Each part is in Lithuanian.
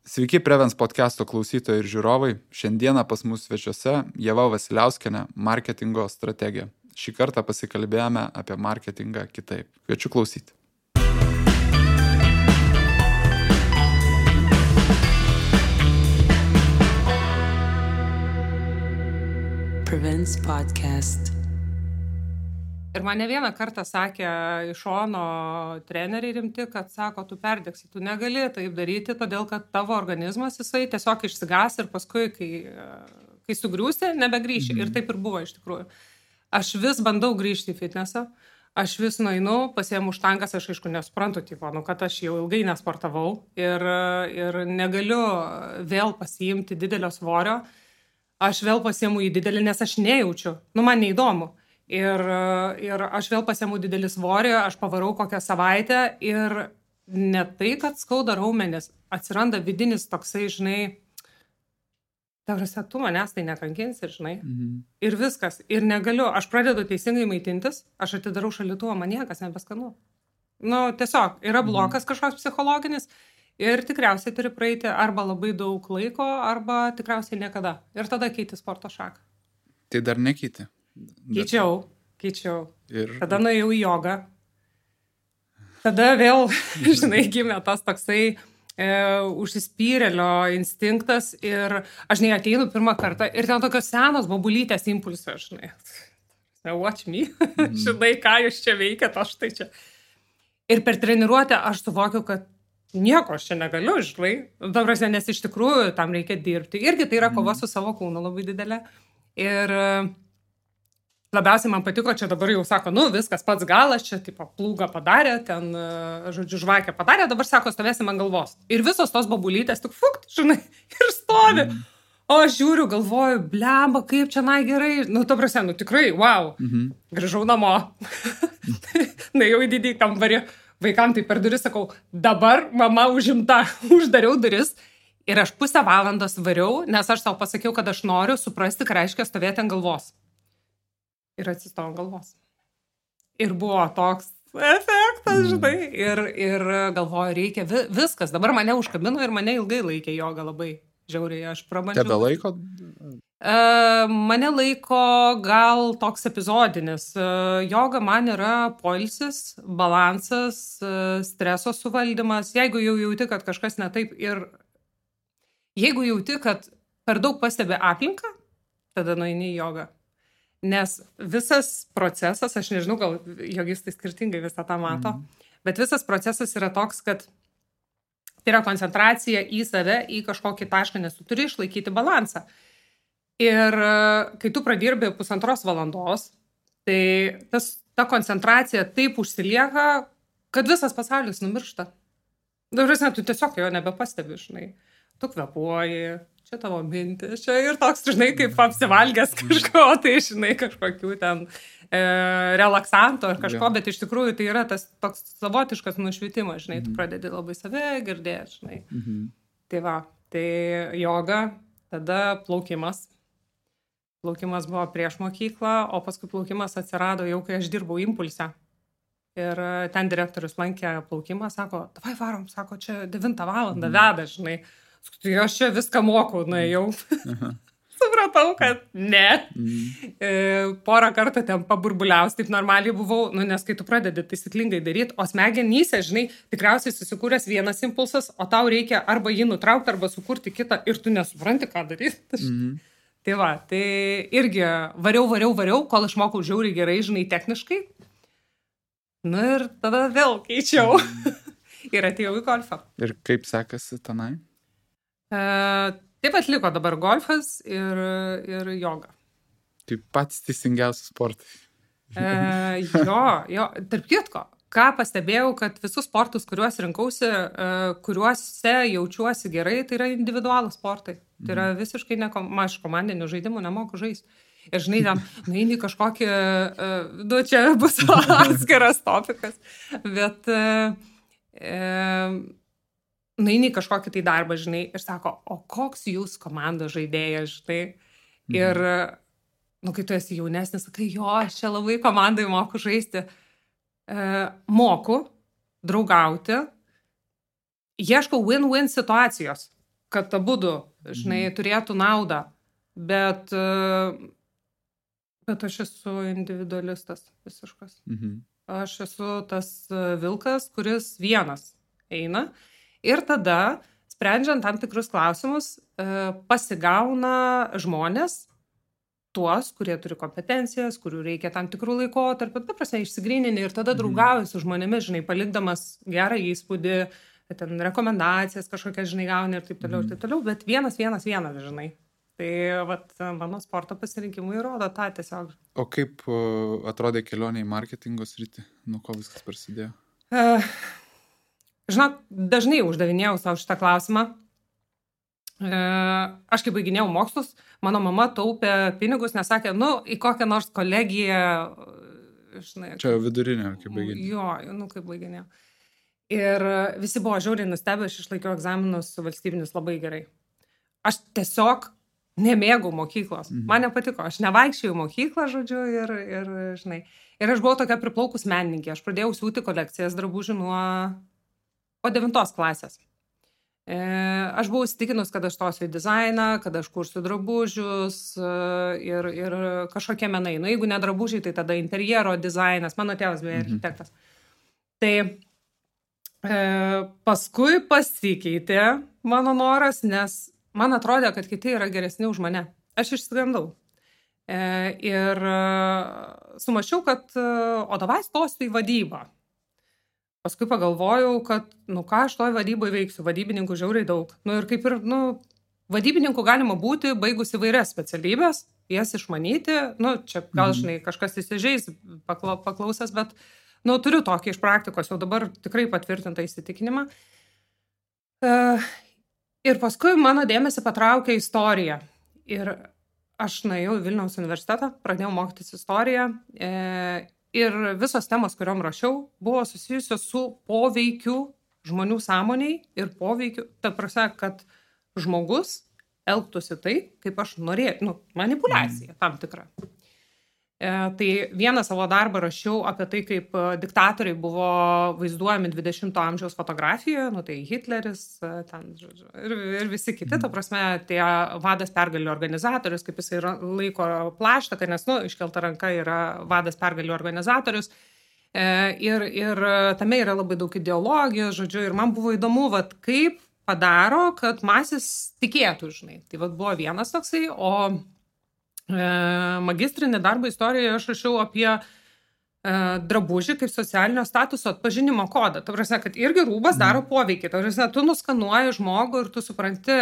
Sveiki Prevens podcast'o klausytojai ir žiūrovai. Šiandieną pas mus svečiuose Ieva Vasiliauskienė, marketingo strategė. Šį kartą pasikalbėjome apie marketingą kitaip. Kviečiu klausyti. Prevents podcast. Ir man ne vieną kartą sakė iš šono treneriai rimti, kad sako, tu perdegsi, tu negali taip daryti, todėl kad tavo organizmas jisai tiesiog išsigas ir paskui, kai sugriūsi, nebegrįši. Ir taip ir buvo iš tikrųjų. Aš vis bandau grįžti į fitnesą, aš vis nueinu, pasiemu štangas, aš aišku nesuprantu, kad aš jau ilgai nesportavau ir negaliu vėl pasiimti didelio svorio, aš vėl pasiemu į didelį, nes aš nejaučiu, man neįdomu. Ir aš vėl pasiemu didelį svorį, aš pavarau kokią savaitę ir ne tai, kad skauda raumenis, atsiranda vidinis toksai, žinai, tu manęs tai nekankinsi, žinai. Ir viskas. Ir negaliu, aš pradedu teisingai maitintis, aš atidarau šaldytuvą, man niekas nebeskanu. Tiesiog, yra blokas kažkoks psichologinis ir tikriausiai turi praeiti arba labai daug laiko, arba tikriausiai niekada. Ir tada keiti sporto šaką. Tai dar nekeiti? Keičiau. Tada nuėjau į jogą. Tada vėl, žinai, gimė tas toksai užsispyrėlio instinktas ir aš ateinu pirmą kartą ir ten tokios senos bobulytės impulsas, žinai. Watch me. Žinai, ką jūs čia veikiat, aš tai čia. Ir per treniruotę aš suvokiu, kad nieko aš čia negaliu, žinai. Nes iš tikrųjų tam reikia dirbti. Irgi tai yra kova su savo kūnu labai didelė. Ir labiausiai man patiko, čia dabar jau sako, viskas pats galas, čia tipo plūgą padarė, ten, žodžiu, žvakę padarė, dabar sako, stovėsim ant galvos. Ir visos tos bobulytės tik fukt, žinai, ir stovi. O aš žiūriu, galvoju, blemba, kaip čia gerai. Tikrai, wow. Grįžau namo. Nuėjau į didį kambarį, vaikam tai per duris sakau, dabar mama užimta, uždariau duris. Ir aš pusę valandos variau, nes aš savo pasakiau, kad aš noriu suprasti, ką reiškia stovėti ant galvos. Ir atsistojau ant galvos. Ir buvo toks efektas, žinai. Ir galvoju, reikia viskas. Dabar mane užkabino ir mane ilgai laikė joga labai žiauriai. Aš prabandžiau. Tebe laiko? Mane laiko gal toks epizodinis. Joga man yra poilsis, balansas, streso suvaldymas. Jeigu jau jauti, kad kažkas ne taip ir jeigu jauti, kad per daug pastebi aplinką, tada nueini į jogą. Nes visas procesas, aš nežinau, gal jogistai skirtingai visą tą mato, bet visas procesas yra toks, kad tai yra koncentracija į save, į kažkokį tašką, nes tu turi išlaikyti balansą. Ir kai tu pradirbi 1,5 valandos, tai ta koncentracija taip užsilieka, kad visas pasaulis numiršta. Tu tiesiog jo nebepastebi, žinai. Tu kvepuoji, čia tavo mintis, čia ir toks, žinai, kaip apsivalgęs kažko, tai, žinai, kažkokių ten relaksanto ar kažko, bet iš tikrųjų tai yra tas toks savotiškas nušvitimas, žinai, tu pradedi labai save girdėti, žinai. Tai va, tai joga, tada plaukimas. Plaukimas buvo prieš mokyklą, o paskui plaukimas atsirado jau, kai aš dirbau impulse. Ir ten direktorius lankė plaukimą, sako, davai varom, sako, čia 9 valandą veda, žinai. Tai aš čia viską moku, nuėjau. Supratau, kad ne. Porą kartų ten paburbuliaus, taip normaliai buvau, nes kai tu pradedi taisyklingai daryti, o smegenyse, žinai, tikriausiai susikūręs vienas impulsas, o tau reikia arba jį nutraukti, arba sukurti kitą ir tu nesupranti, ką daryti. Tai va, tai irgi variau, kol išmokau žiauriai gerai, žinai, techniškai. Ir tada vėl keičiau. Ir atėjau į golfą. Ir kaip sekasi tenai? Taip atliko dabar golfas ir joga. Tai pats teisingiausias sportai. Jo, tarp kitko, ką pastebėjau, kad visus sportus, kuriuos rinkausi, kuriuose jaučiuosi gerai, tai yra individualūs sportai. Tai yra visiškai aš komandinių žaidimų nemoku žaisti. Ir žinai, ten nueini kažkokį, čia bus atskiras topikas, bet nueini kažkokį tai darbą, žinai, ir sako, o koks jūs komandos žaidėjas, žinai. Ir, kai tu esi jaunesnis, sakai, jo, aš čia labai komandai moku žaisti. Moku draugauti, ieškau win-win situacijos. kad abudu, žinai, turėtų naudą, bet aš esu individualistas visiškas. Aš esu tas vilkas, kuris vienas eina ir tada, sprendžiant tam tikrus klausimus, pasigauna žmonės, tuos, kurie turi kompetencijas, kurių reikia tam tikrų laikotarpių, ta prasme, išsigrynini ir tada draugauji su žmonėmis, žinai, palikdamas gerą įspūdį, ten rekomendacijas kažkokias, žinai, gauni ir taip toliau, bet vienas, žinai. Tai vat, mano sporto pasirinkimui rodo tą tiesiog. O kaip atrodė kelionė į marketingo sritį? Nuo ko viskas prasidėjo? Žinok, dažnai uždavinėjau savo šitą klausimą. Aš kai baiginėjau mokslus, mano mama taupė pinigus, nes sakė, į kokią nors kolegiją, žinai. Čia jau vidurinė, kaip baiginėjau. Jo, kaip baiginėjau. Ir visi buvo žiauriai nustebę, aš išlaikiau egzaminus valstybinius labai gerai. Aš tiesiog nemėgau mokyklos. Man nepatiko, aš nevaikščiau į mokyklą, žodžiu, ir žinai. Ir aš buvau tokia priplaukus menininkė. Aš pradėjau siūti kolekcijas drabužių nuo 9 klasės. Aš buvau įsitikinus, kad aš stosiu į dizainą, kad aš kursiu drabužius ir kažkokie menai. Jeigu ne drabužiai, tai tada interjero dizainas. Mano tėvas beje architektas. Tai paskui pasikeitė mano noras, nes man atrodė, kad kiti yra geresni už mane. Aš išsigandau. Ir sumačiau, kad davai stosiu į vadybą. Paskui pagalvojau, kad, ką aš toj vadyboje veiksiu, vadybininkų žiauriai daug. Ir kaip ir, vadybininkų galima būti baigus įvairias specialybės, jas išmanyti, čia gal, žinai, kažkas įsižeis paklausęs, bet, turiu tokį iš praktikos, jau dabar tikrai patvirtintą įsitikinimą. Ir paskui mano dėmesį patraukė istorija. Ir aš nuėjau į Vilniaus universitetą, pradėjau mokytis istoriją. Ir visos temos, kuriom rašiau, buvo susijusios su poveikiu žmonių sąmoniai ir poveikiu, ta prasme, kad žmogus elgtųsi taip, kaip aš norėjau, manipuliacija tam tikra. Tai vieną savo darbą rašiau apie tai, kaip diktatoriai buvo vaizduojami 20-ojo amžiaus fotografijoje, tai Hitleris, ten, žodžiu, ir visi kiti, ta prasme, tie vadas pergalių organizatorius, kaip jisai laiko plaštaką, nes, iškelta ranka yra vadas pergalių organizatorius. Ir tame yra labai daug ideologijos, žodžiu, ir man buvo įdomu, kaip padaro, kad masės tikėtų, žinai. Tai buvo vienas toksai, o magistrinį darbą istorijoje aš rašiau apie drabužį kaip socialinio statuso atpažinimo kodą. Ta prasme, kad irgi rūbas daro poveikį. Ta prasme, tu nuskanuoji žmogų ir tu supranti,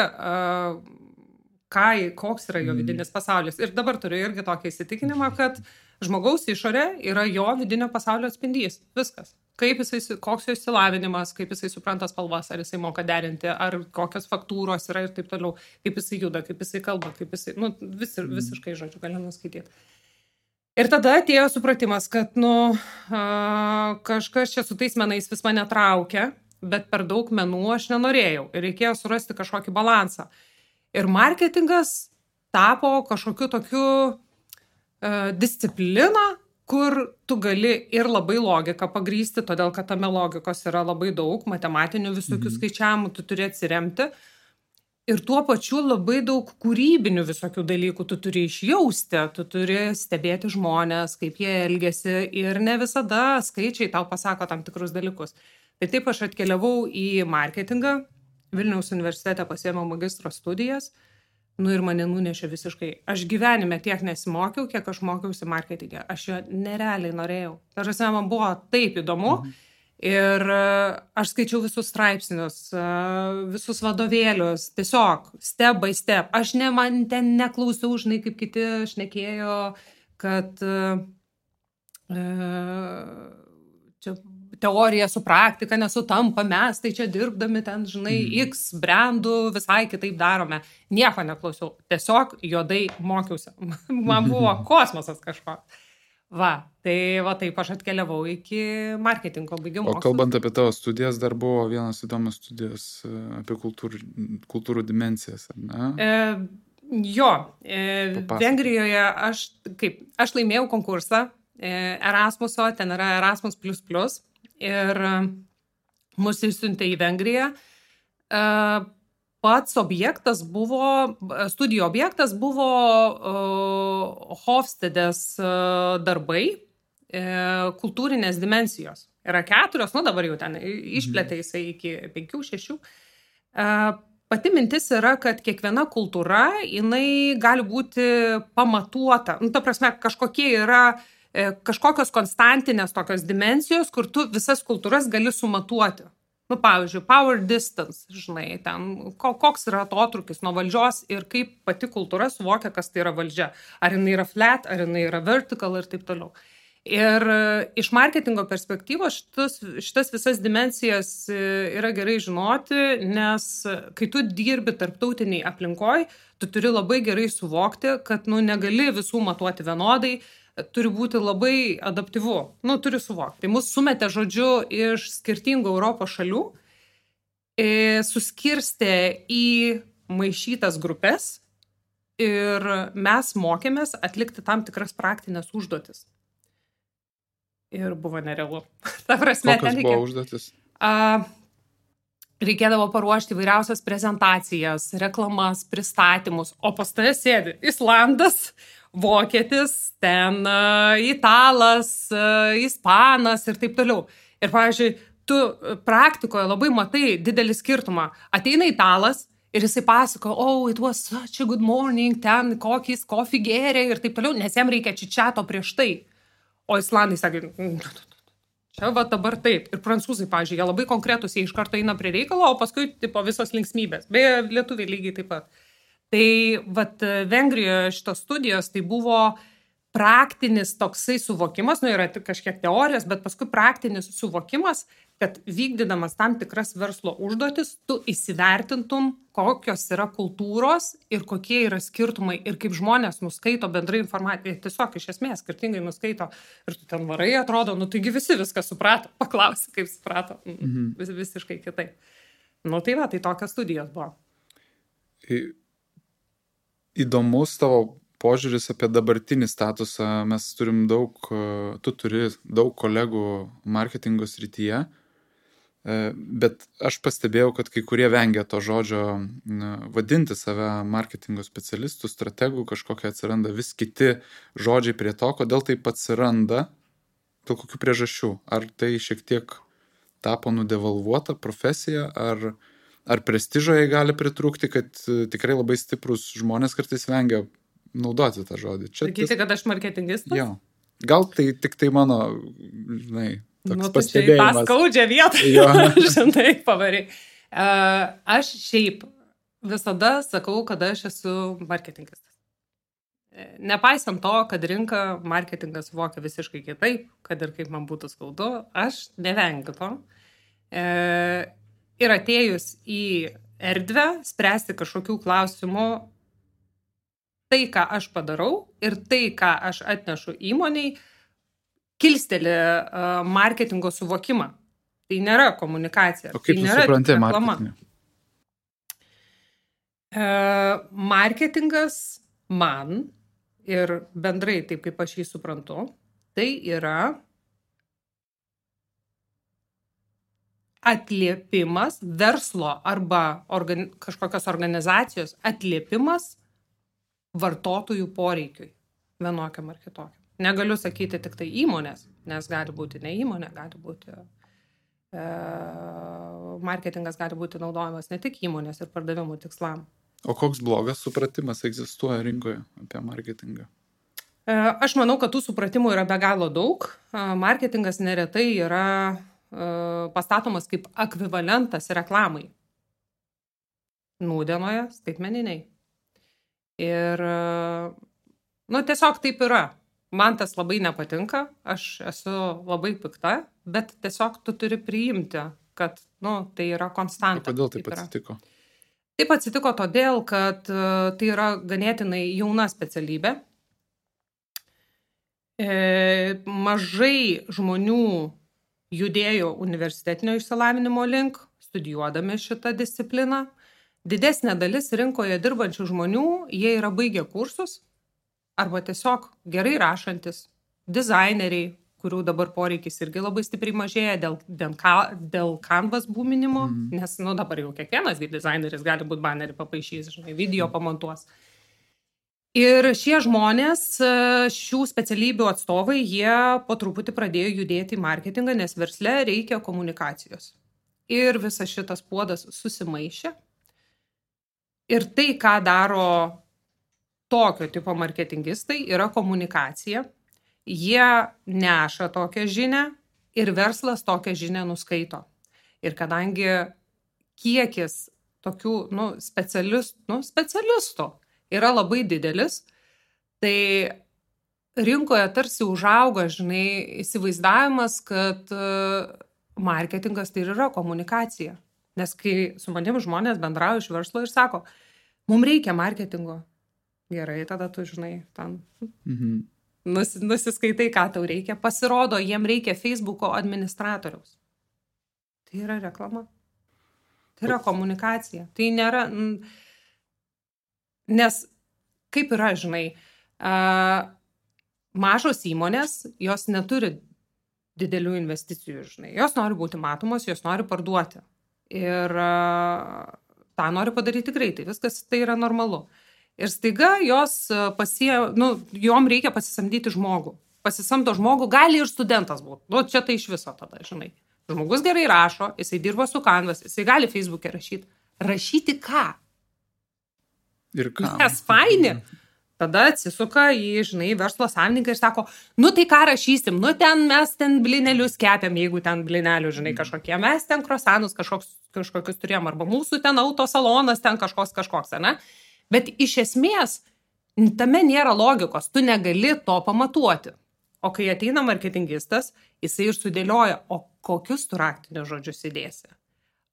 koks yra jo vidinis pasaulis. Ir dabar turiu irgi tokį įsitikinimą, kad žmogaus išorė yra jo vidinio pasaulio atspindys. Viskas. Koks jo išsilavinimas, kaip jisai supranta spalvas, ar jisai moka derinti, ar kokios faktūros yra ir taip toliau, kaip jisai juda, kaip jisai kalba, kaip jisai, visiškai, žodžiu, gali nuskaityti. Ir tada atėjo supratimas, kad, kažkas čia su tais menais vis mane traukia, bet per daug menų aš nenorėjau ir reikėjo surasti kažkokį balansą. Ir marketingas tapo kažkokiu tokiu disciplina, kur tu gali ir labai logiką pagrįsti, todėl kad tame logikos yra labai daug, matematinių visokių skaičiavimų tu turi atsiremti. Ir tuo pačiu labai daug kūrybinių visokių dalykų tu turi išjausti, tu turi stebėti žmonės, kaip jie elgiasi ir ne visada skaičiai tau pasako tam tikrus dalykus. Tai taip aš atkeliavau į marketingą, Vilniaus universitete pasiėmiau magistro studijas, ir mane nunešė visiškai. Aš gyvenime tiek nesimokiau, kiek aš mokiausi marketingę. Aš jo nerealiai norėjau. Tarsi man buvo taip įdomu. Ir aš skaičiau visus straipsnius, visus vadovėlius, tiesiog step by step. Aš man ten neklausiau, žinai, kaip kiti šnekėjo, kad čia teorija su praktika nesutampa, mes tai čia dirbdami ten, žinai, X brandų visai kitaip darome. Nieko neklausiau, tiesiog juodai mokiausi. Man buvo kosmosas kažkoks. Taip aš atkeliavau iki marketingo baigimo. O kalbant apie tavo studijas, dar buvo vienas įdomus studijas apie kultūrų dimensijas, ar ne? Vengrijoje aš laimėjau konkursą Erasmuso, ten yra Erasmus++, ir mus išsiuntė į Vengriją pats objektas buvo, studijų objektas buvo Hofstedės darbai, kultūrinės dimensijos. Yra 4, dabar jau ten išplėtė jisai iki 5-6. Pati mintis yra, kad kiekviena kultūra, jinai gali būti pamatuota. Ta prasme, kažkokios konstantinės tokios dimensijos, kur tu visas kultūras gali sumatuoti. Pavyzdžiui, power distance, žinai, ten koks yra atotrūkis nuo valdžios ir kaip pati kultūra suvokia, kas tai yra valdžia. Ar jinai yra flat, ar jinai yra vertical ir taip toliau. Ir iš marketingo perspektyvos šitas visas dimensijas yra gerai žinoti, nes kai tu dirbi tarptautiniai aplinkoj, tu turi labai gerai suvokti, kad negali visų matuoti vienodai, turi būti labai adaptyvu, turi suvokti. Tai mus sumetė žodžiu iš skirtingų Europos šalių, suskirstė į maišytas grupės ir mes mokėmės atlikti tam tikras praktinės užduotis. Ir buvo nerealu. Ta prasme, kokios buvo užduotis? Reikėdavo paruošti įvairiausias prezentacijas, reklamas, pristatymus, o pas tave sėdi Islandas, Vokietis, ten Italas, Ispanas ir taip toliau. Ir, pavyzdžiui, tu praktikoje labai matai didelį skirtumą. Ateina Italas ir jisai pasako, it was such a good morning, ten kokį kofį gėrė ir taip toliau, nes jam reikia čičiato prieš tai. O Islandai sakė, čia dabar taip. Ir prancūzai, pavyzdžiui, jie labai konkretus, jie iš karto eina prie reikalo, o paskui visos linksmybės. Beje, lietuviai lygiai taip pat. Tai Vengrijoje šitos studijos tai buvo praktinis toksai suvokimas, yra tik kažkiek teorijos, bet paskui praktinis suvokimas, kad vykdydamas tam tikras verslo užduotis, tu įsivertintum, kokios yra kultūros ir kokie yra skirtumai ir kaip žmonės nuskaito bendrai informaciją. Tiesiog iš esmės skirtingai nuskaito ir tu ten varai, atrodo, taigi visi viską suprato, paklausi, kaip suprato, visiškai kitaip. Tai tokios studijos buvo. Įdomus tavo požiūris apie dabartinį statusą. Mes turim tu turi daug kolegų marketingo srityje, bet aš pastebėjau, kad kai kurie vengia to žodžio vadinti save marketingo specialistų, strategų, kažkokie atsiranda vis kiti žodžiai prie to, kodėl taip atsiranda, dėl kokių priežasčių. Ar tai šiek tiek tapo nudevalvuota profesija, ar prestižo jai gali pritrūkti, kad tikrai labai stiprus žmonės kartais vengia naudoti tą žodį. Sakyti, kad aš marketingistas? Jo. Gal tai tik tai mano, toks pastebėjimas. Tai tą skaudžią vietą, žinai, pavariai. Aš šiaip visada sakau, kad aš esu marketingistas. Nepaisant to, kad rinka marketingas suvokia visiškai kitaip, kad ir kaip man būtų skaudu, aš nevengiu to. Ir atėjus į erdvę, spręsti kažkokių klausimų, tai, ką aš padarau ir tai, ką aš atnešu įmoniai, kilsteli marketingo suvokimą. Tai nėra komunikacija. O kaip tu supranti marketingą? Marketingas man ir bendrai taip, kaip aš jį suprantu, tai yra atliepimas, verslo arba kažkokios organizacijos atliepimas vartotojų poreikiui vienokiam ar kitokiam. Negaliu sakyti tik tai įmonės, nes gali būti ne įmonė, gali būti marketingas gali būti naudojamas ne tik įmonės ir pardavimų tikslam. O koks blogas supratimas egzistuoja rinkoje apie marketingą? Aš manau, kad tų supratimų yra be galo daug. Marketingas neretai yra pastatomas kaip ekvivalentas reklamai. Nūdienoje skaitmeniniai. Ir, tiesiog taip yra. Man tas labai nepatinka, aš esu labai pikta, bet tiesiog tu turi priimti, kad, tai yra konstanta. Kodėl taip atsitiko? Taip atsitiko todėl, kad tai yra ganėtinai jauna specialybė. Mažai žmonių judėjo universitetinio išsilavinimo link, studijuodami šitą discipliną. Didesnė dalis rinkoje dirbančių žmonių, jie yra baigę kursus arba tiesiog gerai rašantis, dizaineriai, kurių dabar poreikis irgi labai stipriai mažėja dėl Canvas būminimo, nes, dabar jau kiekvienas dizaineris gali būti banerį papaišys, žinai, video pamontuos. Ir šie žmonės, šių specialybių atstovai, jie po truputį pradėjo judėti į marketingą, nes versle reikia komunikacijos. Ir visas šitas puodas susimaišė. Ir tai, ką daro tokio tipo marketingistai, yra komunikacija. Jie neša tokią žinią ir verslas tokią žinią nuskaito. Ir kadangi kiekis tokių specialistų yra labai didelis, tai rinkoje tarsi užauga, žinai, įsivaizdavimas, kad marketingas tai yra komunikacija. Nes kai su manim žmonės bendrauja iš verslo ir sako, mums reikia marketingo. Gerai, tada tu, žinai, ten nusiskaitai, ką tau reikia. Pasirodo, jiem reikia Facebooko administratoriaus. Tai yra reklama. Tai yra komunikacija. Tai nėra... Nes kaip yra, žinai, mažos įmonės, jos neturi didelių investicijų, žinai. Jos nori būti matomos, jos nori parduoti. Ir tą nori padaryti greitai. Viskas tai yra normalu. Ir staiga jos jom reikia pasisamdyti žmogų. Pasisamdo žmogų, gali ir studentas būti. Čia tai iš viso tada, žinai. Žmogus gerai rašo, jisai dirba su Canvas, jisai gali Facebook'e rašyti. Rašyti ką? Ir ką? Nes faini. Tada atsisuka į, žinai, verslo savininką ir sako, tai ką rašysim, mes ten blinelius kepiam, jeigu ten blinelių, žinai, kažkokie, mes ten krosanus kažkokius turėjom, arba mūsų ten autosalonas ten kažkoks, ne? Bet iš esmės, tame nėra logikos, tu negali to pamatuoti. O kai ateina marketingistas, jisai ir sudėlioja, o kokius tu raktinius žodžius įdėsi?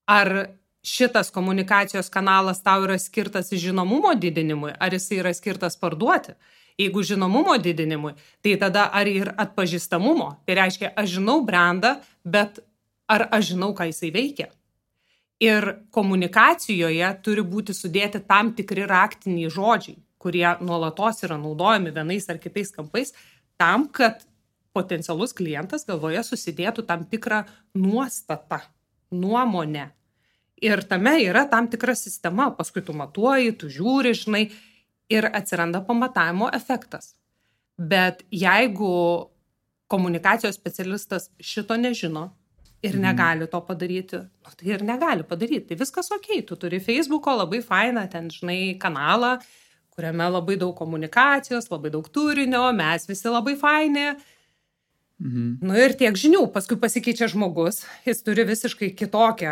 Ar šitas komunikacijos kanalas tau yra skirtas žinomumo didinimui, ar jisai yra skirtas parduoti? Jeigu žinomumo didinimui, tai tada ar ir atpažįstamumo? Tai reiškia, aš žinau brandą, bet ar aš žinau, ką jisai veikia? Ir komunikacijoje turi būti sudėti tam tikri raktiniai žodžiai, kurie nuolatos yra naudojami vienais ar kitais kampais, tam, kad potencialus klientas galvoje susidėtų tam tikrą nuostatą, nuomonę. Ir tame yra tam tikra sistema, paskui tu matuoji, tu žiūri, žinai, ir atsiranda pamatavimo efektas. Bet jeigu komunikacijos specialistas šito nežino ir negali to padaryti, tai ir negali padaryti. Tai viskas okei, tu turi Facebooko labai fainą, ten, žinai, kanalą, kuriame labai daug komunikacijos, labai daug turinio, mes visi labai faini. Ir tiek žinių, paskui pasikeičia žmogus, jis turi visiškai kitokią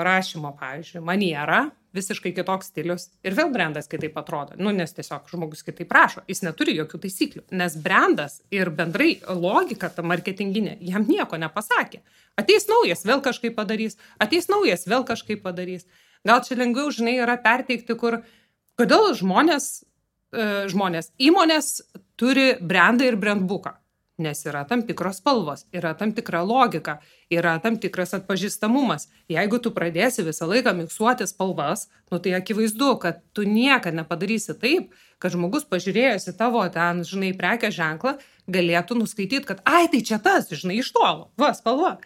rašymo, pavyzdžiui, manierą, visiškai kitoks stilius ir vėl brandas kitaip atrodo, nes tiesiog žmogus kitaip rašo, jis neturi jokių taisyklių, nes brandas ir bendrai logika ta marketinginė jam nieko nepasakė. Ateis naujas, vėl kažkaip padarys, ateis naujas, vėl kažkaip padarys. Gal čia lengviau, žinai, yra perteikti, kodėl įmonės turi brandą ir brandbooką. Nes yra tam tikros spalvos, yra tam tikra logika, yra tam tikras atpažįstamumas. Jeigu tu pradėsi visą laiką miksuoti spalvas, tai akivaizdu, kad tu niekada nepadarysi taip, kad žmogus pažiūrėjęs į tavo ten, žinai, prekės ženklą, galėtų nuskaityti, kad tai čia tas, žinai, iš tolo, spalva.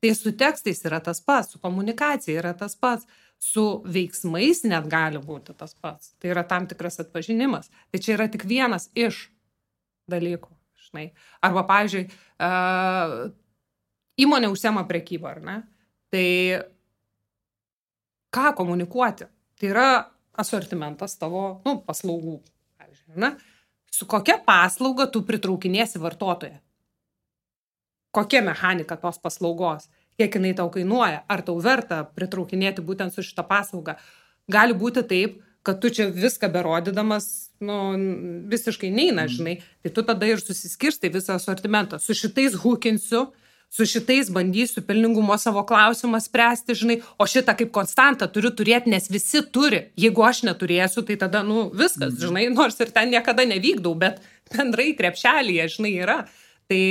Tai su tekstais yra tas pats, su komunikacija yra tas pats, su veiksmais net gali būti tas pats. Tai yra tam tikras atpažinimas. Tai čia yra tik vienas iš dalykų. Arba, pavyzdžiui, įmonė užsiema prekybą, ar ne? Tai ką komunikuoti? Tai yra asortimentas tavo paslaugų, pavyzdžiui, ne? Su kokia paslauga tu pritraukinėsi vartotoją? Kokia mechanika tos paslaugos? Kiek jinai tau kainuoja? Ar tau verta pritraukinėti būtent su šitą paslaugą? Gali būti taip, kad tu čia viską berodydamas, visiškai neina, žinai, tai tu tada ir susiskirstai visą asortimentą. Su šitais hukinsiu, su šitais bandysiu pelningumo savo klausimą spręsti, žinai, o šitą kaip konstantą turiu turėti, nes visi turi. Jeigu aš neturėsiu, tai tada, viskas, žinai, nors ir ten niekada nevykdau, bet bendrai krepšelyje, žinai, yra. Tai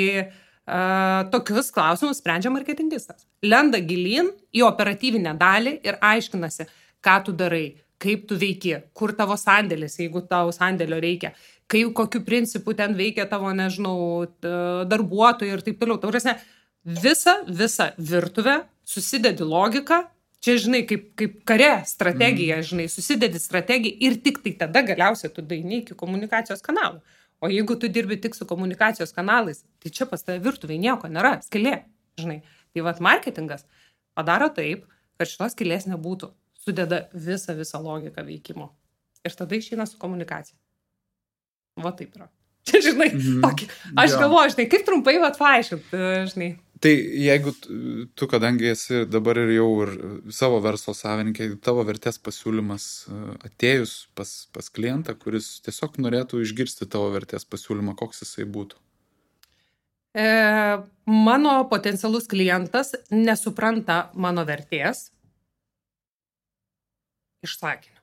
tokius klausimus sprendžia marketingistas. Lenda gilyn į operatyvinę dalį ir aiškinasi, ką tu darai, kaip tu veiki, kur tavo sandėlis, jeigu tau sandėlio reikia, kaip, kokiu principu ten veikia tavo, nežinau, darbuotojai ir taip toliau. Taurėsne, visą virtuvę susidedi logiką, čia, žinai, kaip kare strategija, žinai, susidedi strategiją ir tik tai tada galiausiai tu daini iki komunikacijos kanalų. O jeigu tu dirbi tik su komunikacijos kanalais, tai čia pas tave virtuviai nieko nėra, skylė, žinai. Tai vat marketingas padaro taip, kad šitos skylės nebūtų, sudeda visą logiką veikimo. Ir tada išeina su komunikacija. Va taip yra. Čia, žinai, tokį. Aš galvoju, žinai, kaip trumpai vat paaiškint, žinai. Tai jeigu tu, kadangi esi dabar ir jau ir savo verslo savininkai, tavo vertės pasiūlymas atėjus pas klientą, kuris tiesiog norėtų išgirsti tavo vertės pasiūlymą, koks jisai būtų? Mano potencialus klientas nesupranta mano vertės iš sakinio.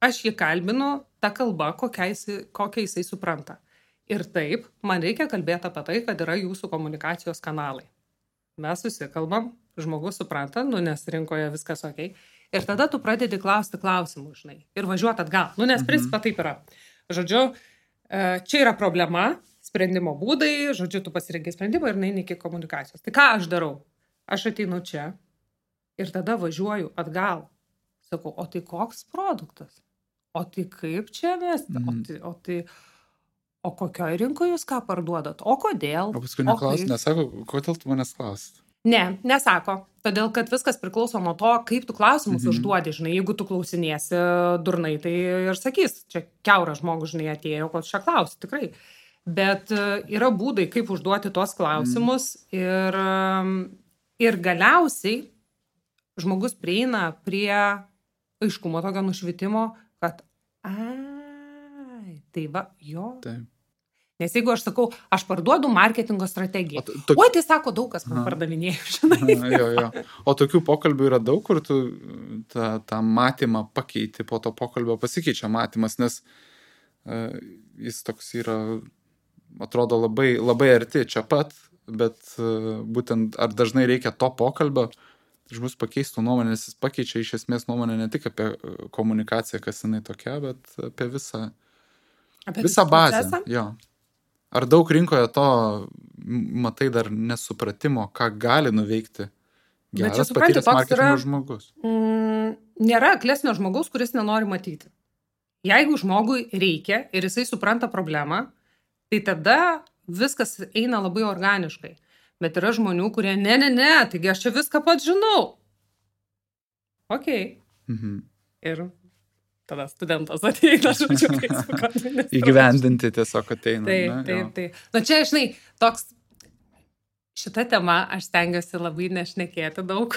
Aš jį kalbinu tą kalbą, kokią jisai supranta. Ir taip, man reikia kalbėti apie tai, kad yra jūsų komunikacijos kanalai. Mes susikalbam, žmogus supranta, nes rinkoje viskas ok. Ir tada tu pradedi klausti klausimų, žinai, ir važiuoti atgal. Nes principą taip yra. Žodžiu, čia yra problema, sprendimo būdai, žodžiu, tu pasirengi sprendimą ir neini iki komunikacijos. Tai ką aš darau? Aš ateinu čia ir tada važiuoju atgal. Sakau, o tai koks produktas? O tai kaip čia vesti? O kokioje rinkoje jūs ką parduodat? O kodėl? O paskui nesako, kodėl tu manęs klausit? Ne, nesako. Todėl, kad viskas priklauso nuo to, kaip tu klausimus užduodi, žinai. Jeigu tu klausinėsi durnai, tai ir sakys, čia kiauras žmogus, žinai, atėjo, ko čia klausi, tikrai. Bet yra būdai, kaip užduoti tuos klausimus ir galiausiai žmogus prieina prie aiškumo tokio nušvitimo, kad tai va, jo. Taip. Nes jeigu aš sakau, aš parduodu marketingo strategiją. Oi, tai sako, daug kas man pardavinėjo, žinai. Jo. O tokių pokalbių yra daug, kur tu tą matymą pakeiti, po to pokalbio pasikeičia matymas, nes jis toks yra, atrodo labai, labai arti čia pat, bet būtent ar dažnai reikia to pokalbio, žmogus pakeistų nuomonę, nes jis pakeičia iš esmės nuomonę ne tik apie komunikaciją, kas jinai tokia, bet apie visą bazę. Jo. Ar daug rinkoje to, matai, dar nesupratimo, ką gali nuveikti geras patyręs marketingo žmogus? Nėra aklesnio žmogaus, kuris nenori matyti. Jeigu žmogui reikia ir jisai supranta problemą, tai tada viskas eina labai organiškai. Bet yra žmonių, kurie ne, taigi aš čia viską pats žinau. Ok. Ir tada studentas ateina, žodžiu, Facebook'o administratorius. Įgyvendinti tiesiog ateina. Taip. Na čia, žinai, toks, šitą temą aš stengiuosi labai nešnekėti daug,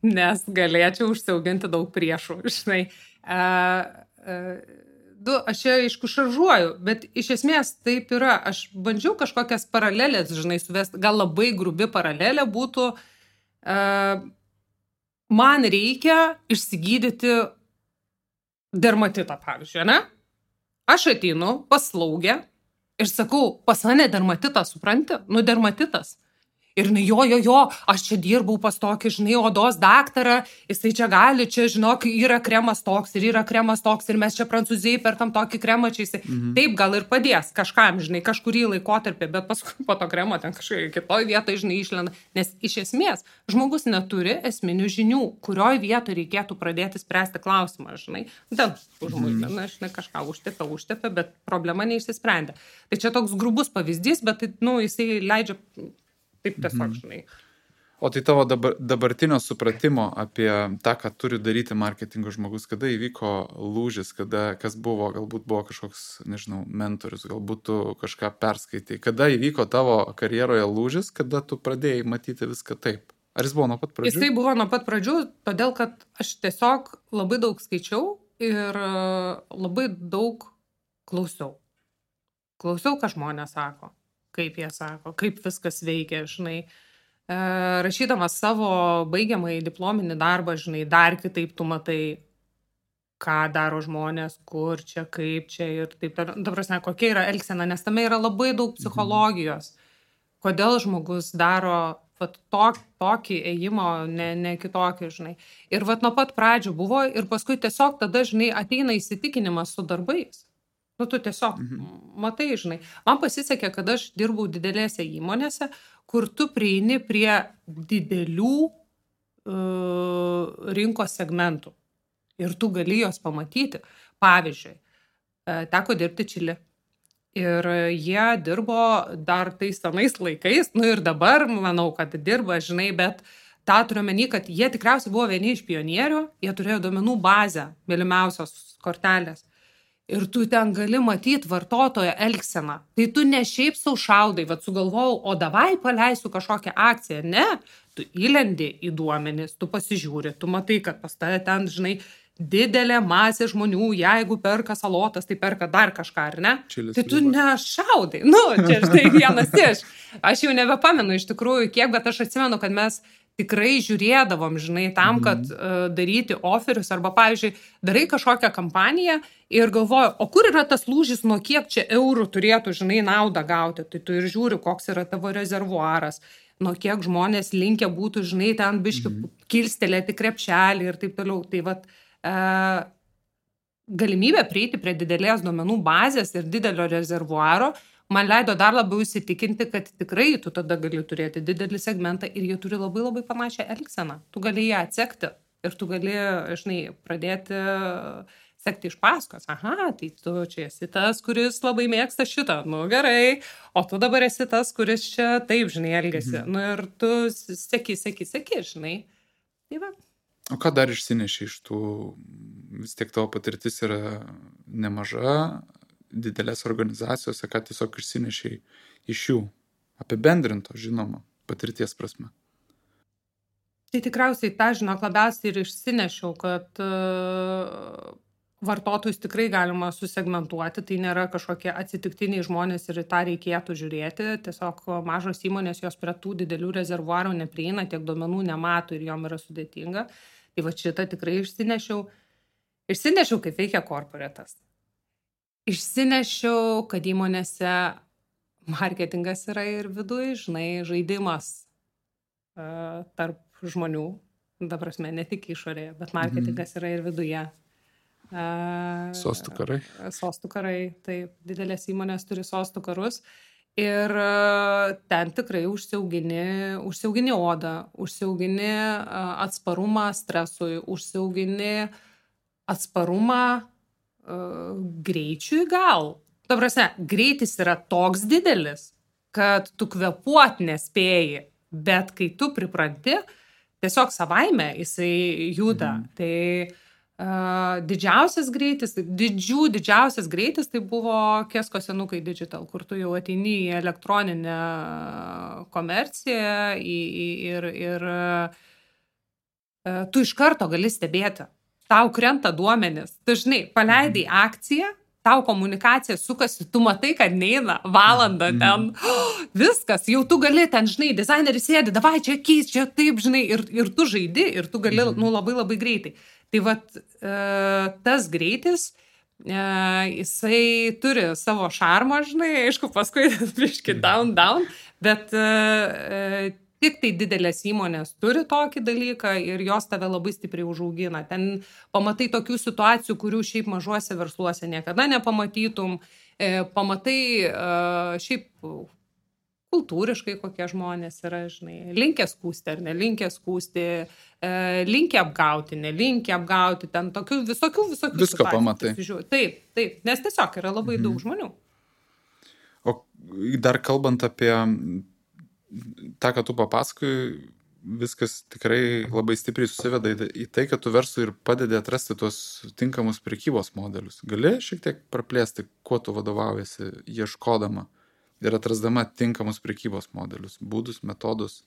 nes galėčiau užsiauginti daug priešų, žinai. Aš čia, aišku, šaržuoju, bet iš esmės taip yra. Aš bandžiau kažkokias paralelės, žinai, suvesti, gal labai grubi paralelė būtų, man reikia išsigydyti dermatitą, pavyzdžiui, ne? Aš ateinu pas slaugę ir sakau, pas mane dermatitą, supranti? Dermatitas. Ir jo, aš čia dirbau pas tokį, žinai, odos daktarą, jisai čia gali, čia, žinok, yra kremas toks ir yra kremas toks ir mes čia Prancūzijai perkam tokį kremą čia jisai. Taip gal ir padės kažkam, žinai, kažkurį laikotarpį, bet paskui po to kremo ten kažkai kitoj vietoj, žinai, išlenda. Nes iš esmės žmogus neturi esminių žinių, kurioj vietoj reikėtų pradėti spręsti klausimą, žinai. Ten užmuidina, žinai, kažką užtepė, bet problema neišsisprendė. Tai čia toks grubus pavyzdys, bet jisai leidžia taip tiesiog, žinai. O tai tavo dabartinio supratimo apie tą, ką turi daryti marketingo žmogus, kada įvyko lūžis, kas buvo, galbūt buvo kažkoks, nežinau, mentorius, galbūt tu kažką perskaitai, kada įvyko tavo karjeroje lūžis, kada tu pradėjai matyti viską taip? Ar jis buvo nuo pat pradžių? Jisai buvo nuo pat pradžių, todėl, kad aš tiesiog labai daug skaičiau ir labai daug klausiau. Klausiau, ką žmonės sako. Kaip jie sako, kaip viskas veikia, žinai. Rašydamas savo baigiamąjį diplominį darbą, žinai, dar kitaip tu matai, ką daro žmonės, kur čia, kaip čia ir taip. Dabar, kokia yra elgsena, nes tame yra labai daug psichologijos. Kodėl žmogus daro vat tokį ėjimo, ne kitokį, žinai. Ir vat nuo pat pradžių buvo ir paskui tiesiog tada, žinai, ateina įsitikinimas su darbais. Nu, tu tiesiog matai, žinai. Man pasisekė, kad aš dirbau didelėse įmonėse, kur tu prieini prie didelių rinkos segmentų. Ir tu gali jos pamatyti. Pavyzdžiui, teko dirbti Čilį. Ir jie dirbo dar tais senais laikais, nu ir dabar, manau, kad dirba, žinai, bet tą turiu omeny, kad jie tikriausiai buvo vieni iš pionierių, jie turėjo duomenų bazę, mylimiausios kortelės. Ir tu ten gali matyti vartotojo elgseną. Tai tu ne šiaip sau šaudai, vat sugalvojau, o davai paleisiu kažkokią akciją. Ne, tu įlendi į duomenis, tu pasižiūri, tu matai, kad pas tave ten, žinai, didelė masė žmonių, jeigu perka salotas, tai perka dar kažką, ar ne? Čilis tai tu nešaudai. Nu, čia štai vienas iš. Aš jau nebepamenu iš tikrųjų kiek, bet aš atsimenu, kad mes tikrai žiūrėdavom, žinai, tam, kad daryti oferius arba, pavyzdžiui, darai kažkokią kampaniją ir galvoju, o kur yra tas lūžis, nuo kiek čia eurų turėtų, žinai, naudą gauti. Tai tu ir žiūri, koks yra tavo rezervuaras, nuo kiek žmonės linkę būtų, žinai, ten biški kilstelėti krepšelį ir taip toliau. Tai vat galimybė prieiti prie didelės duomenų bazės ir didelio rezervuaro man leido dar labiau įsitikinti, kad tikrai tu tada gali turėti didelį segmentą ir jie turi labai labai panašią elgseną. Tu gali ją atsekti ir tu gali, žinai, pradėti sekti iš paskos. Aha, tai tu čia esi tas, kuris labai mėgsta šitą. Nu gerai, o tu dabar esi tas, kuris čia taip, žinai, elgiasi. Nu ir tu seki, žinai. Tai va. O ką dar išsineši iš tų, vis tiek tavo patirtis yra nemaža, didelės organizacijose, ką tiesiog išsinešiai iš jų, apibendrinto, žinoma, patirties prasme? Tai tikriausiai tą, žinok, labiausiai ir išsinešiau, kad vartotojus tikrai galima susegmentuoti, tai nėra kažkokie atsitiktiniai žmonės ir į tą reikėtų žiūrėti, tiesiog mažos įmonės jos prie tų didelių rezervuarų neprieina, tiek duomenų nemato ir jom yra sudėtinga. Tai va šitą tikrai išsinešiau, kaip veikia korporatas. Išsinešiau, kad įmonėse marketingas yra ir viduj, žinai, žaidimas tarp žmonių, ta prasme, ne tik išorėje, bet marketingas yra ir viduje. Sostų karai. Sostų karai, taip, didelės įmonės turi sostų karus ir ten tikrai užsiaugini odą, užsiaugini atsparumą stresui, užsiaugini atsparumą greičiui gal. Ta prasme, greitis yra toks didelis, kad tu kvėpuot nespėji, bet kai tu pripranti, tiesiog savaime jisai juda. Tai didžiausias greitis tai buvo Kesko senukai Digital, kur tu jau ateini į elektroninę komerciją ir tu iš karto gali stebėti. Tau krenta duomenis. Tu, žinai, paleidai akciją, tau komunikacija sukasi, tu matai, kad neina valandą ten. Viskas, jau tu gali ten, žinai, dizaineris sėdi, davai čia keis, čia taip, žinai, ir tu žaidi, ir tu gali, labai labai greitai. Tai vat tas greitis, jisai turi savo šarmą, žinai, aišku, paskui biški down, bet tik tai didelės įmonės turi tokį dalyką ir jos tave labai stipriai užaugina. Ten pamatai tokių situacijų, kurių šiaip mažuose versluose niekada nepamatytum. Pamatai šiaip kultūriškai kokie žmonės yra, žinai, linkę skųsti ar nelinkę skųsti, linkę apgauti, nelinkę apgauti, ten tokių visokių Visko pamatai. Taip, nes tiesiog yra labai daug žmonių. O dar kalbant apie tą, ką tu papasakoji, viskas tikrai labai stipriai susiveda į tai, kad tu verslui ir padedi atrasti tuos tinkamus prekybos modelius. Gali šiek tiek praplėsti, kuo tu vadovaujasi ieškodama ir atrasdama tinkamus prekybos modelius, būdus, metodus?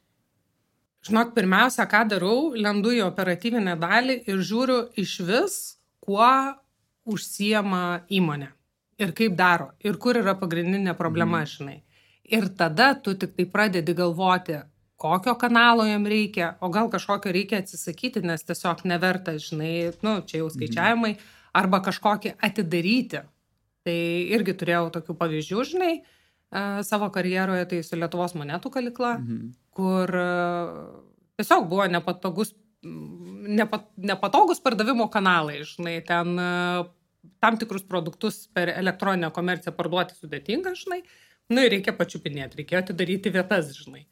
Žinok, pirmiausia, ką darau, lendu į operatyvinę dalį ir žiūriu iš vis, kuo užsiema įmonė ir kaip daro ir kur yra pagrindinė problema, žinai. Ir tada tu tik tai pradedi galvoti, kokio kanalo jam reikia, o gal kažkokio reikia atsisakyti, nes tiesiog neverta, žinai, čia jau skaičiavimai, arba kažkokį atidaryti. Tai irgi turėjau tokių pavyzdžių, žinai, savo karjeroje, tai su Lietuvos monetų kalykla, kur tiesiog buvo nepatogus pardavimo kanalai, žinai, ten tam tikrus produktus per elektroninę komerciją parduoti sudėtinga, žinai, nu ir reikia pačiupinėti, reikėjo atidaryti vietas, žinai.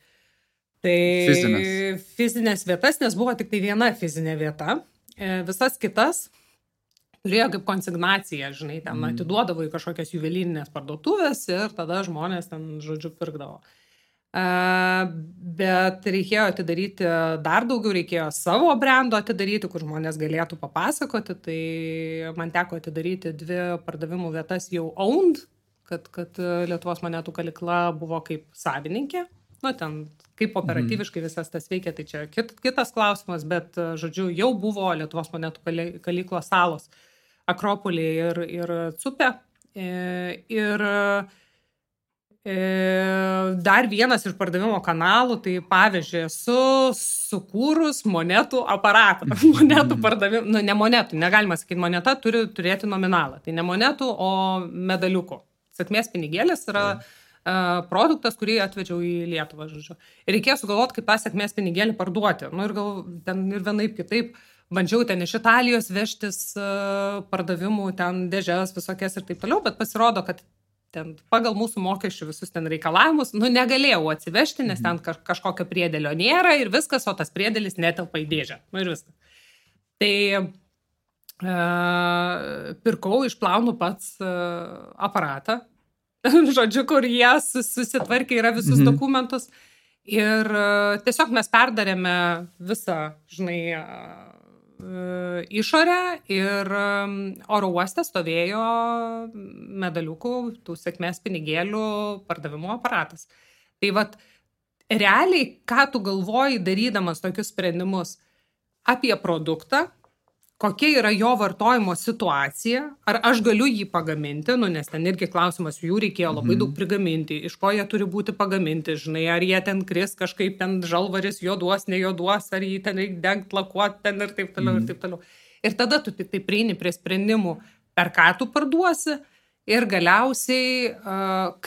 Tai fizinės vietas, nes buvo tik tai viena fizinė vieta, visas kitas turėjo kaip konsignaciją, žinai, ten atiduodavo į kažkokias juvelyrinės parduotuvės ir tada žmonės ten, žodžiu, pirkdavo. Bet reikėjo atidaryti dar daugiau, reikėjo savo brendo atidaryti, kur žmonės galėtų papasakoti, tai man teko atidaryti 2 pardavimų vietas jau owned, kad Lietuvos monetų kalykla buvo kaip savininkė, nu ten kaip operatyviškai visas tas veikia, tai čia kitas klausimas, bet, žodžiu, jau buvo Lietuvos monetų kalyklos salos, Akropolė ir Cupė. Ir dar vienas iš pardavimo kanalų, tai pavyzdžiui, esu sukūrus monetų aparatą. Monetų pardavimą, nu ne monetų, negalima sakyti, moneta turi turėti nominalą. Tai ne monetų, o medaliukų. Sėkmės pinigėlis yra produktas, kurį atvedžiau į Lietuvą, žodžiu. Ir reikėjo sugalvoti, kaip tą sėkmės pinigėlį parduoti. Nu ir ten ir vienaip kitaip. Bandžiau ten iš Italijos vežtis pardavimų, ten dėžes visokias ir taip toliau, bet pasirodo, kad ten pagal mūsų mokesčių visus ten reikalavimus, nu negalėjau atsivežti, nes ten kažkokio priedėlio nėra ir viskas, o tas priedėlis netelpa į dėžę. Nu ir viskas. Tai pirkau, išplaunu pats aparatą, žodžiu, kur jie susitvarkė yra visus dokumentus ir tiesiog mes perdarėme visą, žinai, išorę ir oro uoste stovėjo medaliukų, tų sėkmės pinigėlių pardavimo aparatas. Tai vat, realiai, ką tu galvoji darydamas tokius sprendimus apie produktą, kokia yra jo vartojimo situacija, ar aš galiu jį pagaminti, nu, nes ten irgi klausimas, jų reikėjo labai daug prigaminti, iš ko jie turi būti pagaminti, žinai, ar jie ten kris kažkaip ten žalvaris juoduos, nejuoduos, ar jį ten reikia dengt, lakuoti ten ir taip toliau, ir taip toliau. Ir tada tu tik tai prieini prie sprendimų, per ką tu parduosi ir galiausiai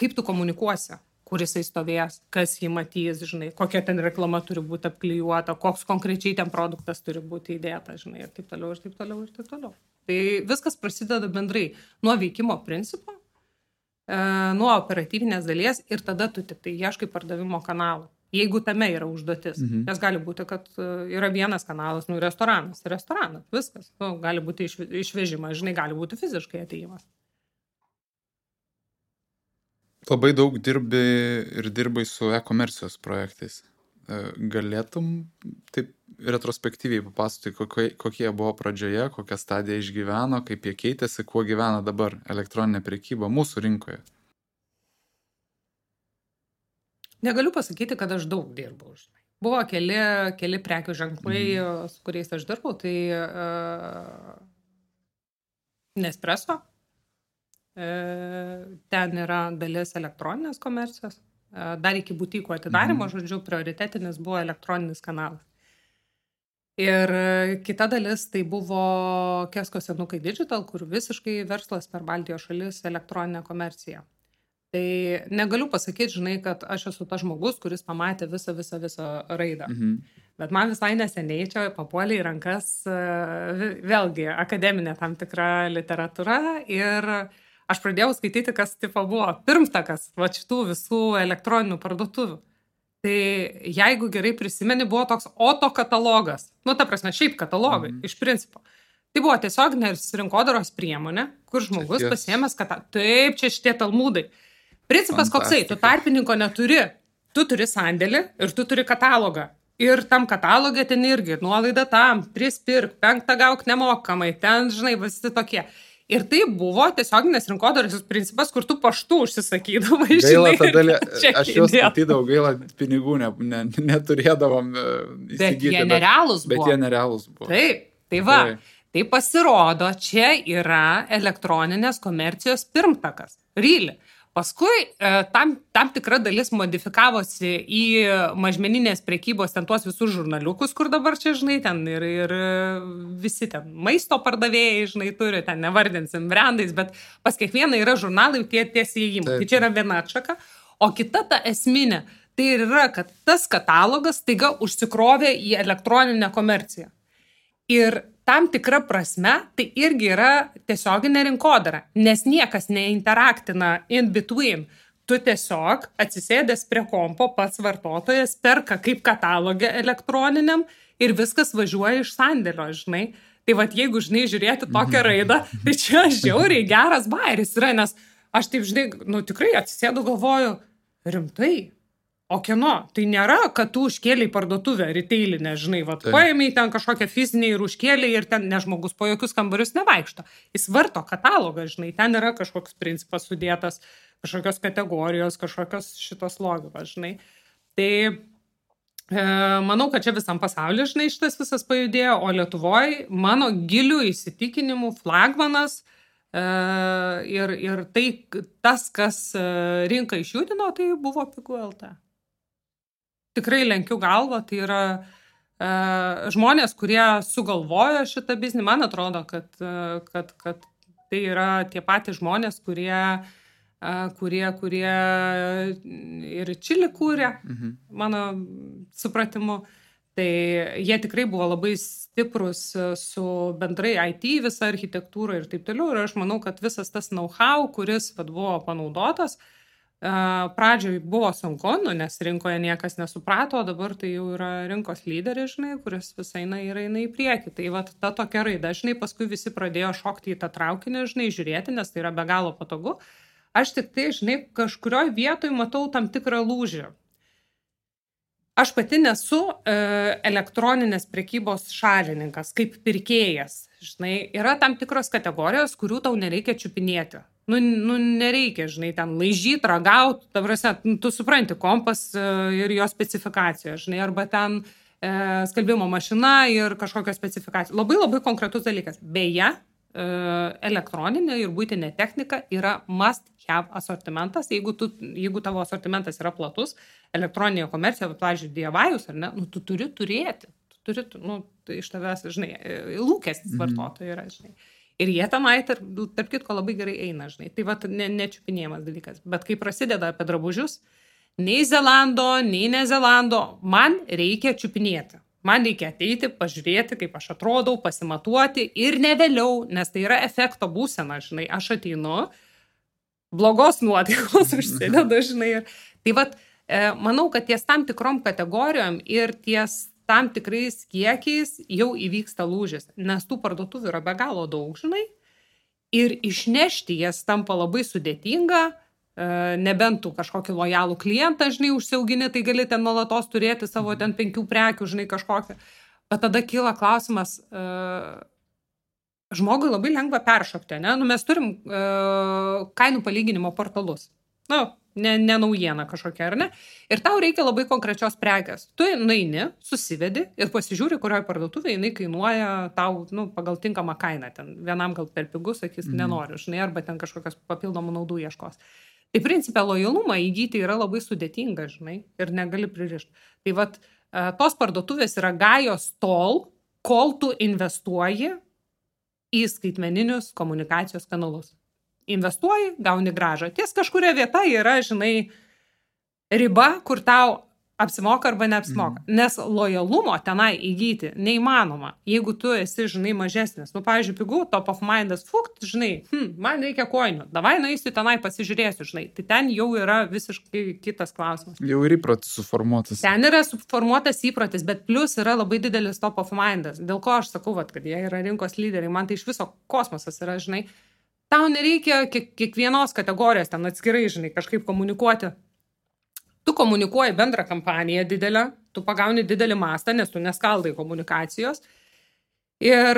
kaip tu komunikuosi, kur jisai stovės, kas jį matys, žinai, kokia ten reklama turi būti apklijuota, koks konkrečiai ten produktas turi būti įdėta, žinai, ir taip toliau, ir taip toliau, ir taip toliau. Tai viskas prasideda bendrai nuo veikimo principo, nuo operatyvinės dalies ir tada tu tik tai ieškai pardavimo kanalų, jeigu tame yra užduotis. Nes gali būti, kad yra vienas kanalas, nu, restoranas, viskas. Nu, gali būti išvežimas, žinai, gali būti fiziškai atėjimas. Labai daug dirbai su e-komercijos projektais. Galėtum taip retrospektyviai papasakoti, kokie buvo pradžioje, kokią stadiją išgyveno, kaip jie keitėsi, kuo gyvena dabar elektroninė prekyba mūsų rinkoje? Negaliu pasakyti, kad aš daug dirbau. Buvo keli prekių ženklai, su kuriais aš dirbau, tai Nespresso. Ten yra dalis elektroninės komercijos. Dar iki butikų atidarimo, žodžiu, prioritetinis buvo elektroninis kanalas. Ir kita dalis tai buvo Kesko senukai Digital, kur visiškai verslas per Baltijos šalis elektroninė komercija. Tai negaliu pasakyti, žinai, kad aš esu tas žmogus, kuris pamatė visą raidą. Bet man visai neseniai čia papuolė į rankas vėlgi akademinė tam tikra literatūra ir aš pradėjau skaityti, kas tipo buvo pirmtakas va šitų visų elektroninių parduotuvių. Tai jeigu gerai prisimeni, buvo toks Oto katalogas. Nu, ta prasme, šiaip katalogai, iš principo. Tai buvo tiesiog rinkodaros priemonė, kur žmogus pasiėmęs, kad taip, čia šitie talmudai. Principas koksai, tu tarpininko neturi. Tu turi sandėlį ir tu turi katalogą. Ir tam katalogė ten irgi nuolaida tam, 3 pirk, 5 gauk nemokamai, ten, žinai, visi tokie. Ir tai buvo tiesioginės rinkodaros principas, kur tu paštu užsisakydavai, žinai. Gaila, tada aš juos skaitydavau, gaila, pinigų neturėdavom įsigyti. Bet jie nerealūs buvo. Bet jie nerealūs buvo. Taip, tai va. Tai pasirodo, čia yra elektroninės komercijos pirmtakas. Really. Paskui tam tikra dalis modifikavosi į mažmeninės prekybos ten tuos visus žurnaliukus, kur dabar čia, žinai, ten ir visi ten maisto pardavėjai, žinai, turi, ten nevardinsim brandais, bet pas kiekvieną yra žurnalai tie įėjimai. Tai čia yra viena atšaka. O kita ta esminė, tai yra, kad tas katalogas taiga užsikrovė į elektroninę komerciją. Ir tam tikra prasme tai irgi yra tiesioginė rinkodara, nes niekas neinteraktina in between. Tu tiesiog atsisėdęs prie kompo, pats vartotojas perka kaip katalogę elektroniniam ir viskas važiuoja iš sandėlio, žinai. Tai vat jeigu, žinai, žiūrėti tokią raidą, tai čia žiauriai geras bairis yra, nes aš taip, žinai, tikrai atsisėdu galvoju, rimtai. O kieno? Tai nėra, kad tu užkėliai parduotuvę retailinę, žinai, paėmei ten kažkokią fizinę ir užkėliai ir ten žmogus po jokius kambarius nevaikšto. Jis varto katalogą, žinai, ten yra kažkoks principas sudėtas, kažkokios kategorijos, kažkokios šitos logikos, žinai. Tai manau, kad čia visam pasaulyje, žinai, šitas visas pajudėjo, o Lietuvoje mano gilių įsitikinimų flagmanas ir tai tas, kas rinką išjudino, tai buvo Pigu.lt. Tikrai lenkiu galvą, tai yra žmonės, kurie sugalvojo šitą biznį. Man atrodo, kad tai yra tie patys žmonės, kurie ir Čilį kūrė, mano supratimu. Tai jie tikrai buvo labai stiprus su bendrai IT, visa architektūra ir taip toliau. Ir aš manau, kad visas tas know-how, kuris buvo panaudotas, pradžioj buvo sunku, nes rinkoje niekas nesuprato, o dabar tai jau yra rinkos lyderis, žinai, kuris visai eina į priekį. Tai vat ta tokia raida, žinai, paskui visi pradėjo šokti į tą traukinį, žinai, žiūrėti, nes tai yra be galo patogu. Aš tik tai, žinai, kažkurioje vietoje matau tam tikrą lūžį. Aš pati nesu elektroninės prekybos šalininkas, kaip pirkėjas. Žinai, yra tam tikros kategorijos, kurių tau nereikia čiupinėti. Nereikia, žinai, ten laižyti, ragauti, ta prasme, tu supranti kompas ir jo specifikacijos, žinai, arba ten skalbimo mašina ir kažkokios specifikacijos. Labai labai konkretus dalykas. Beje, elektroninė ir buitinė technika yra must have asortimentas. Jeigu tavo asortimentas yra platus, elektroninė komercija, pavyzdžiui, DIY-us, ar ne, tu turi turėti. Tai iš tavęs, žinai, lūkestis vartotojų yra, žinai. Ir jie tenai, tarp kitko, labai gerai eina, žinai. Tai vat nečiupinėjimas dalykas. Bet kai prasideda apie drabužius, nei Zelando, nei ne Zelando, man reikia čiupinėti. Man reikia ateiti, pažiūrėti, kaip aš atrodau, pasimatuoti ir ne vėliau, nes tai yra efekto būsena, žinai. Aš ateinu, blogos nuotaikos užsideda, žinai. Tai vat, manau, kad ties tam tikrom kategorijom ir ties tam tikrais kiekiais jau įvyksta lūžis, nes tų parduotuvių yra be galo daug, žinai, ir išnešti jas tampa labai sudėtinga, nebent tu kažkokį lojalų klientą, žinai, užsiaugini, tai gali ten nuolatos turėti savo ten 5 prekių, žinai, kažkokią. Bet tada kyla klausimas, žmogui labai lengva peršokti, ne? Mes turim kainų palyginimo portalus. Ne naujiena kažkokia, ar ne? Ir tau reikia labai konkrečios prekės. Tu nueini, susivedi ir pasižiūri, kurioje parduotuvėje jinai kainuoja tau pagal tinkamą kainą. Ten vienam gal per pigus, sakys, nenoriu, žinai, arba ten kažkokios papildomų naudų ieškos. Tai principė lojalumą įgyti yra labai sudėtinga, žinai, ir negali pririšti. Tai vat, tos parduotuvės yra gajos tol, kol tu investuoji į skaitmeninius komunikacijos kanalus. Investuoji, gauni grąžą. Ties kažkuria vieta yra, žinai, riba, kur tau apsimoka arba neapsimoka. Nes lojalumo tenai įgyti neįmanoma, jeigu tu esi, žinai, mažesnis. Pavyzdžiui, Pigu, top of mindas, žinai, man reikia koinių, davai nueisiu tenai pasižiūrėsiu, žinai. Tai ten jau yra visiškai kitas klausimas. Jau ir įprotis suformuotas. Ten yra suformuotas įprotis, bet plus yra labai didelis top of mindas. Dėl ko aš sakau, kad jie yra rinkos lyderiai, man tai iš viso kosmosas yra, žinai. Tau nereikia kiekvienos kategorijos ten atskirai, žinai, kažkaip komunikuoti. Tu komunikuoji bendrą kampaniją didelę, tu pagauni didelį mastą, nes tu neskaldai komunikacijos. Ir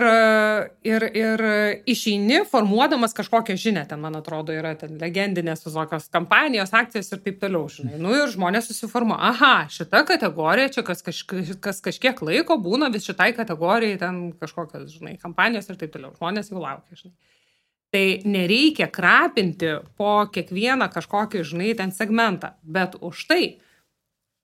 išeini formuodamas kažkokią žinią, ten, man atrodo, yra ten legendinės visokios kampanijos, akcijos ir taip toliau, žinai. Ir žmonės susiformuoja, aha, šita kategorija, čia kas kažkiek laiko būna vis šitai kategorijai, ten kažkokios, žinai, kampanijos ir taip toliau. Žmonės jau laukia, žinai. Tai nereikia krapinti po kiekvieną kažkokį, žinai, ten segmentą, bet už tai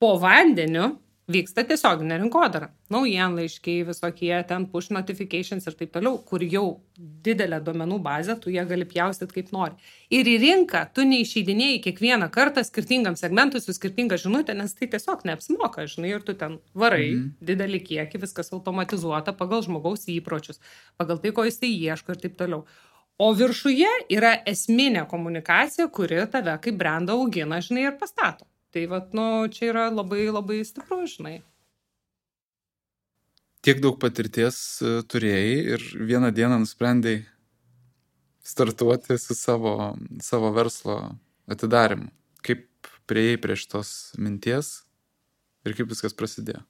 po vandeniu vyksta tiesioginė rinkodara. Naujienlaiškiai, visokie ten push notifications ir taip toliau, kur jau didelę duomenų bazę, tu ją gali pjaustyti kaip nori. Ir į rinką tu neišeidinėjai kiekvieną kartą skirtingam segmentui su skirtinga žinutė, nes tai tiesiog neapsimoka, žinai, ir tu ten varai didelį kiekį, viskas automatizuota pagal žmogaus įpročius, pagal tai, ko jis tai ieško ir taip toliau. O viršuje yra esminė komunikacija, kuri tave kaip brandą augina, žinai, ir pastato. Tai vat, čia yra labai, labai stipru, žinai. Tiek daug patirties turėjai ir vieną dieną nusprendėjai startuoti su savo verslo atidarymu. Kaip priėjai prie šitos minties ir kaip viskas prasidėjo?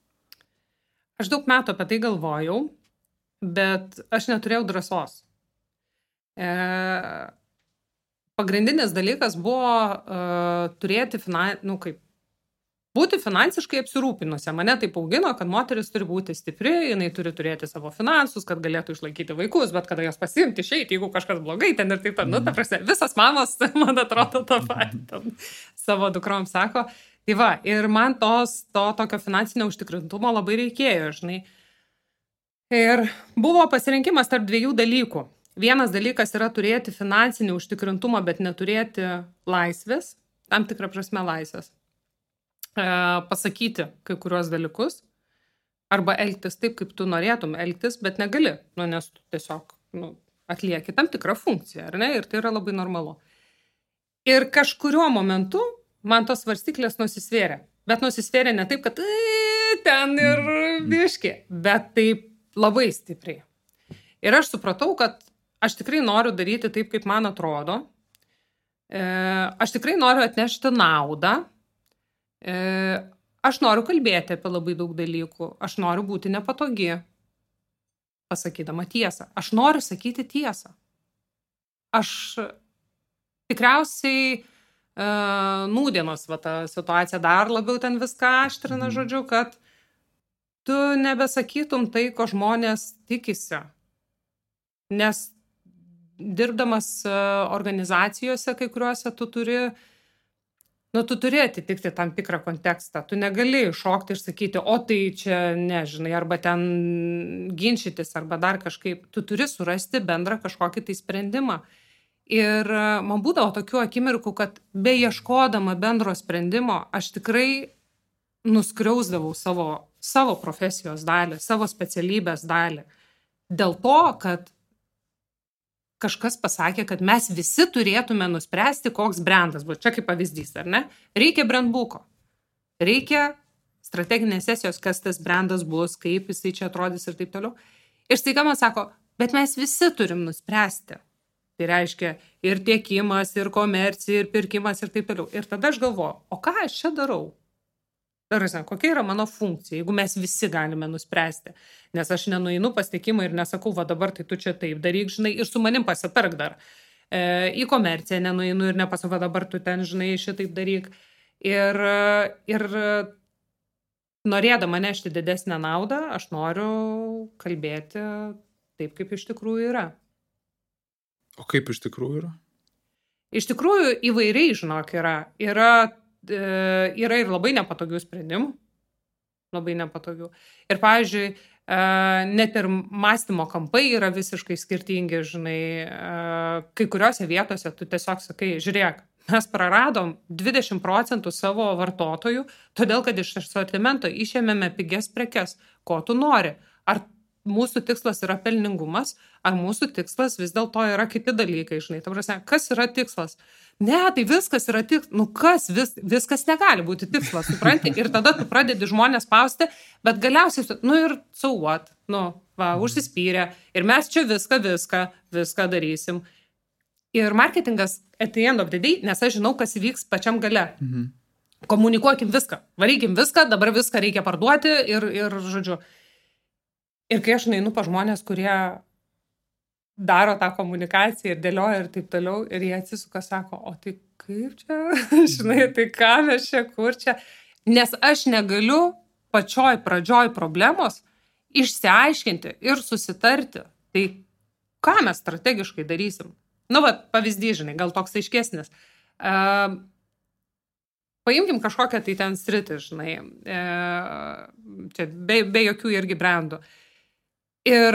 Aš daug metų apie tai galvojau, bet aš neturėjau drąsos. Pagrindinis dalykas buvo turėti būti finansiškai apsirūpinusi. Mane taip augino, kad moteris turi būti stipri, jinai turi turėti savo finansus, kad galėtų išlaikyti vaikus, bet kada jos pasiimti išeiti, jeigu kažkas blogai, ten ir taip, ta prasme, visas mamos, man atrodo, tą patį savo dukrom sako. Tai va, ir man to tokio finansinio užtikrintumo labai reikėjo, žinai. Ir buvo pasirinkimas tarp dviejų dalykų. Vienas dalykas yra turėti finansinį užtikrintumą, bet neturėti laisvės, tam tikrą prasme laisvės. Pasakyti kai kuriuos dalykus, arba elgtis taip, kaip tu norėtum elgtis, bet negali, nes tu tiesiog atlieki tam tikrą funkciją, ar ne? Ir tai yra labai normalu. Ir kažkuriuo momentu man tos svarstyklės nusisvėrė. Bet nusisvėrė ne taip, kad ten ir biški, bet taip labai stipriai. Ir aš supratau, kad aš tikrai noriu daryti taip, kaip man atrodo. Aš tikrai noriu atnešti naudą. Aš noriu kalbėti apie labai daug dalykų. Aš noriu būti nepatogi, pasakydama tiesą. Aš noriu sakyti tiesą. Aš tikriausiai nūdienos ta situacija dar labiau ten viską aštrina, žodžiu, kad tu nebesakytum tai, ko žmonės tikisi. Nes dirbdamas organizacijose, kai kuriuose tu turi atitikti tam tikrą kontekstą. Tu negali šokti ir sakyti, o tai čia nežinai, arba ten ginčytis, arba dar kažkaip. Tu turi surasti bendrą kažkokį tai sprendimą. Ir man būdavo tokių akimirkų, kad beieškodama bendro sprendimo, aš tikrai nuskriausdavau savo profesijos dalį, savo specialybės dalį. Dėl to, kad kažkas pasakė, kad mes visi turėtume nuspręsti, koks brandas bus. Čia kaip pavyzdys, ar ne? Reikia brandbuko. Reikia strateginės sesijos, kas tas brandas bus, kaip jisai čia atrodys ir taip toliau. Ir staiga man sako, bet mes visi turim nuspręsti. Tai reiškia ir tiekimas, ir komercija, ir pirkimas ir taip toliau. Ir tada aš galvoju, o ką aš čia darau? Kokia yra mano funkcija, jeigu mes visi galime nuspręsti. Nes aš nenueinu pas tiekimą ir nesakau, va dabar tai tu čia taip daryk, žinai, ir su manim pasitark dar. Į komerciją nenueinu ir nepasakau, va dabar tu ten, žinai, šitaip daryk. Ir norėdama nešti didesnę naudą, aš noriu kalbėti taip, kaip iš tikrųjų yra. O kaip iš tikrųjų yra? Iš tikrųjų įvairiai, žinok, yra ir labai nepatogių sprendimų. Labai nepatogių. Ir, pavyzdžiui, net ir mąstymo kampai yra visiškai skirtingi, žinai, kai kuriuose vietose tu tiesiog sakai, žiūrėk, mes praradom 20% savo vartotojų, todėl, kad iš asortimento išėmėme pigias prekes. Ko tu nori? Ar mūsų tikslas yra pelningumas, ar mūsų tikslas vis dėlto yra kiti dalykai, žinai. Ta prasme, kas yra tikslas? Ne, tai viskas yra tikslas. Viskas negali būti tikslas, supranti? Ir tada tu pradedi žmonės spausti, bet galiausiai, ir so what? Užsispyrė. Ir mes čia viską darysim. Ir marketingas at the end of the day, nes aš žinau, kas įvyks pačiam gale. Komunikuokim viską. Varykim viską, dabar viską reikia parduoti ir žodžiu. Ir kai aš nueinu pa žmonės, kurie daro tą komunikaciją ir dėlioja ir taip toliau, ir jie atsisuka, sako, o tai kaip čia, žinai, tai ką mes čia, kur čia. Nes aš negaliu pačioj pradžioj problemos išsiaiškinti ir susitarti. Tai ką mes strategiškai darysim? Pavyzdys, žinai, gal toks aiškesnis. paimkim kažkokią tai ten sritį, žinai, čia be jokių irgi brandų. Ir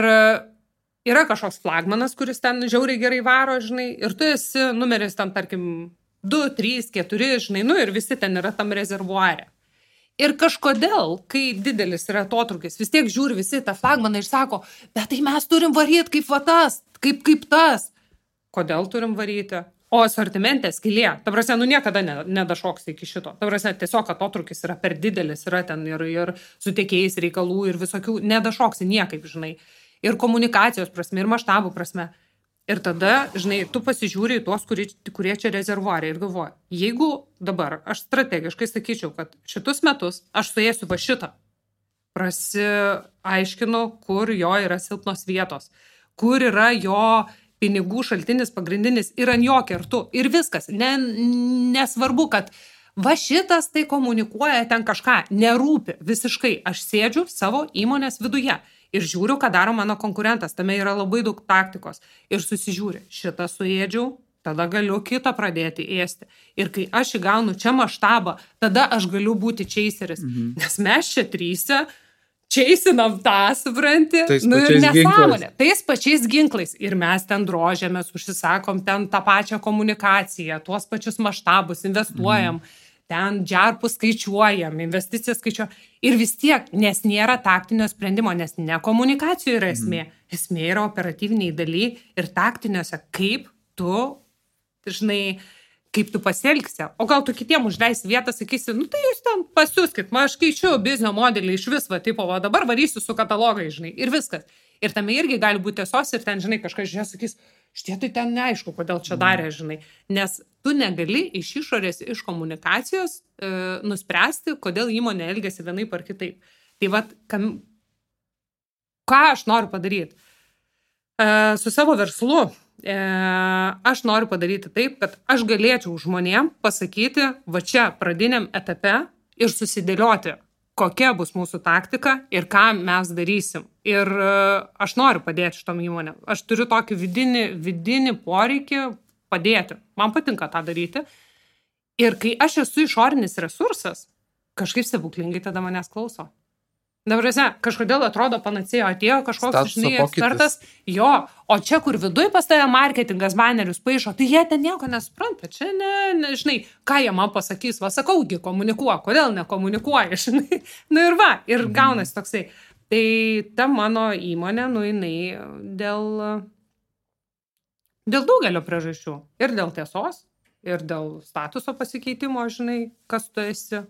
yra kažkoks flagmanas, kuris ten žiauriai gerai varo, žinai, ir tu esi numeris ten, tarkim, 2, 3, 4, žinai, nu ir visi ten yra tam rezervuare. Ir kažkodėl, kai didelis yra atotrūkis, vis tiek žiūri visi tą flagmaną ir sako, bet tai mes turim varyti kaip va tas, kaip tas. Kodėl turim varyti? O asortimente skylė. Ta prasme, nu niekada nedašoks iki šito. Ta prasme, tiesiog atotrūkis yra per didelis, yra ten ir su tiekėjais reikalų ir visokių, nedašoksi niekaip, žinai. Ir komunikacijos prasme, ir maštabų prasme. Ir tada, žinai, tu pasižiūri į tuos, kurie čia rezervuariai ir galvoji, jeigu dabar aš strategiškai sakyčiau, kad šitus metus aš suėsiu va šitą, prasiaiškinu, kur jo yra silpnos vietos, kur yra jo pinigų šaltinis pagrindinis ir ant jo kertu. Ir viskas. Nesvarbu, kad va šitas tai komunikuoja ten kažką. Nerūpi visiškai. Aš sėdžiu savo įmonės viduje ir žiūriu, ką daro mano konkurentas. Tame yra labai daug taktikos. Ir susižiūri. Šitą suėdžiau, tada galiu kitą pradėti ėsti. Ir kai aš įgaunu čia maštabą, tada aš galiu būti chaseris. Nes mes čia trysia čeisinam tą, supranti, nu ir nesąmonė. Tais pačiais ginklais. Ir mes ten drožiamės, užsisakom ten tą pačią komunikaciją, tuos pačius maštabus, investuojam, ten džarpus skaičiuojam, investicijas skaičiuojam. Ir vis tiek, nes nėra taktinio sprendimo, nes ne komunikacijų yra esmė. Esmė yra operatyviniai daly ir taktiniuose, kaip tu, žinai, kaip tu pasielgsi. O gal tu kitiem užleisi vietą, sakysi, nu tai jūs ten pasiūskit, aš keičiu biznio modelį iš vis, va, tipo, va, dabar varysiu su katalogai, žinai, ir viskas. Ir tame irgi gali būti tiesos ir ten, žinai, kažkas žiūrės, sakys, šitie tai ten neaišku, kodėl čia darė, žinai. Nes tu negali iš išorės, iš komunikacijos nuspręsti, kodėl įmonė elgiasi vienaip ar kitaip. Tai va, ką aš noriu padaryti? Su savo verslu aš noriu padaryti taip, kad aš galėčiau žmonėm pasakyti va čia pradiniam etape ir susidėlioti, kokia bus mūsų taktika ir ką mes darysim. Ir aš noriu padėti šitom įmonėm. Aš turiu tokį vidinį poreikį padėti. Man patinka tą daryti. Ir kai aš esu išorinis resursas, kažkaip stebuklingai tada manęs klauso. Dabar, kažkodėl atrodo panacėjo, atėjo kažkoks, žinai, ekspertas, jo, o čia, kur viduj pas tave marketingas banerius paišo, tai jie ten nieko nesupranta, čia žinai, ką jie man pasakys, va, sakaugi, komunikuoja, kodėl nekomunikuoja, žinai, nu ir va, ir gaunasi toksai. Tai ta mano įmonė, nu, jinai dėl daugelio priežasčių, ir dėl tiesos, ir dėl statuso pasikeitimo, žinai, kas tu esi,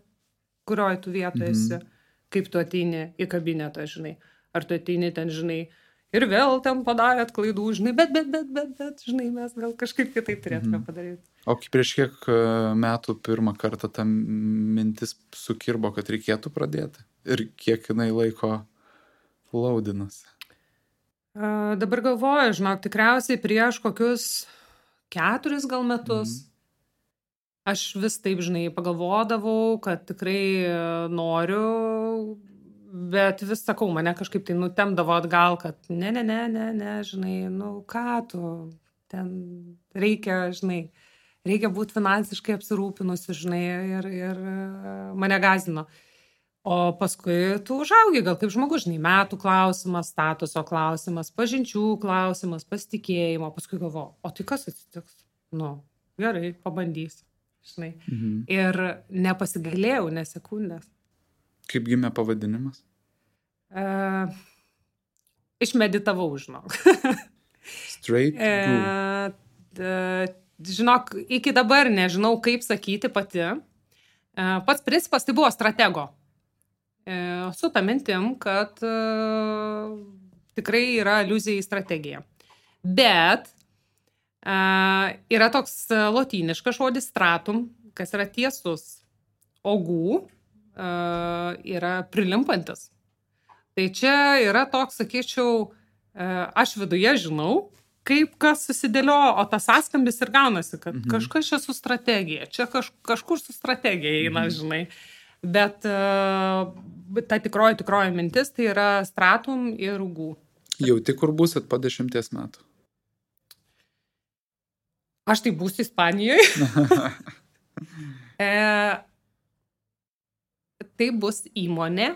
kurioj tu vietoje esi. Kaip tu ateini į kabinetą, žinai, ar tu ateini ten, žinai, ir vėl ten padarėt klaidų, žinai, bet, žinai, mes gal kažkaip kitaip turėtume padaryti. O prieš kiek metų pirmą kartą ta mintis sukirbo, kad reikėtų pradėti? Ir kiek jinai laiko laudinasi? Dabar galvoju, žinok, tikriausiai prieš kokius 4 gal metus. Aš vis taip, žinai, pagalvodavau, kad tikrai noriu, bet vis sakau, mane kažkaip tai nutemdavo atgal, kad ne, žinai, nu ką tu, ten reikia, žinai, reikia būti finansiškai apsirūpinusi, žinai, ir mane gąsdino. O paskui tu užaugi, gal kaip žmogus, žinai, metų klausimas, statuso klausimas, pažinčių klausimas, pasitikėjimo, paskui galvoju, o tai kas atsitiks? Nu, gerai, pabandysiu. Žinai. Ir nepasigailėjau, nesekundės. Kaip gimė pavadinimas? Išmeditavau, žinok. Straight Brew. Žinok, iki dabar nežinau, kaip sakyti pati. Pats principas tai buvo stratego. Su ta mintim, kad tikrai yra aliuzija į strategiją. Bet yra toks lotyniškas žodis stratum, kas yra tiesus. Ogų yra prilimpantis. Tai čia yra toks, sakyčiau, aš viduje žinau, kaip kas susidėliojo, o tas sąskambis ir gaunasi, kad kažkas čia su strategija, čia kažkur su strategija eina, žinai. Bet ta tikroji mintis tai yra stratum ir ogų. Jauti, kur būsit po 10 metų? Aš tai būsiu Ispanijoje. tai bus įmonė,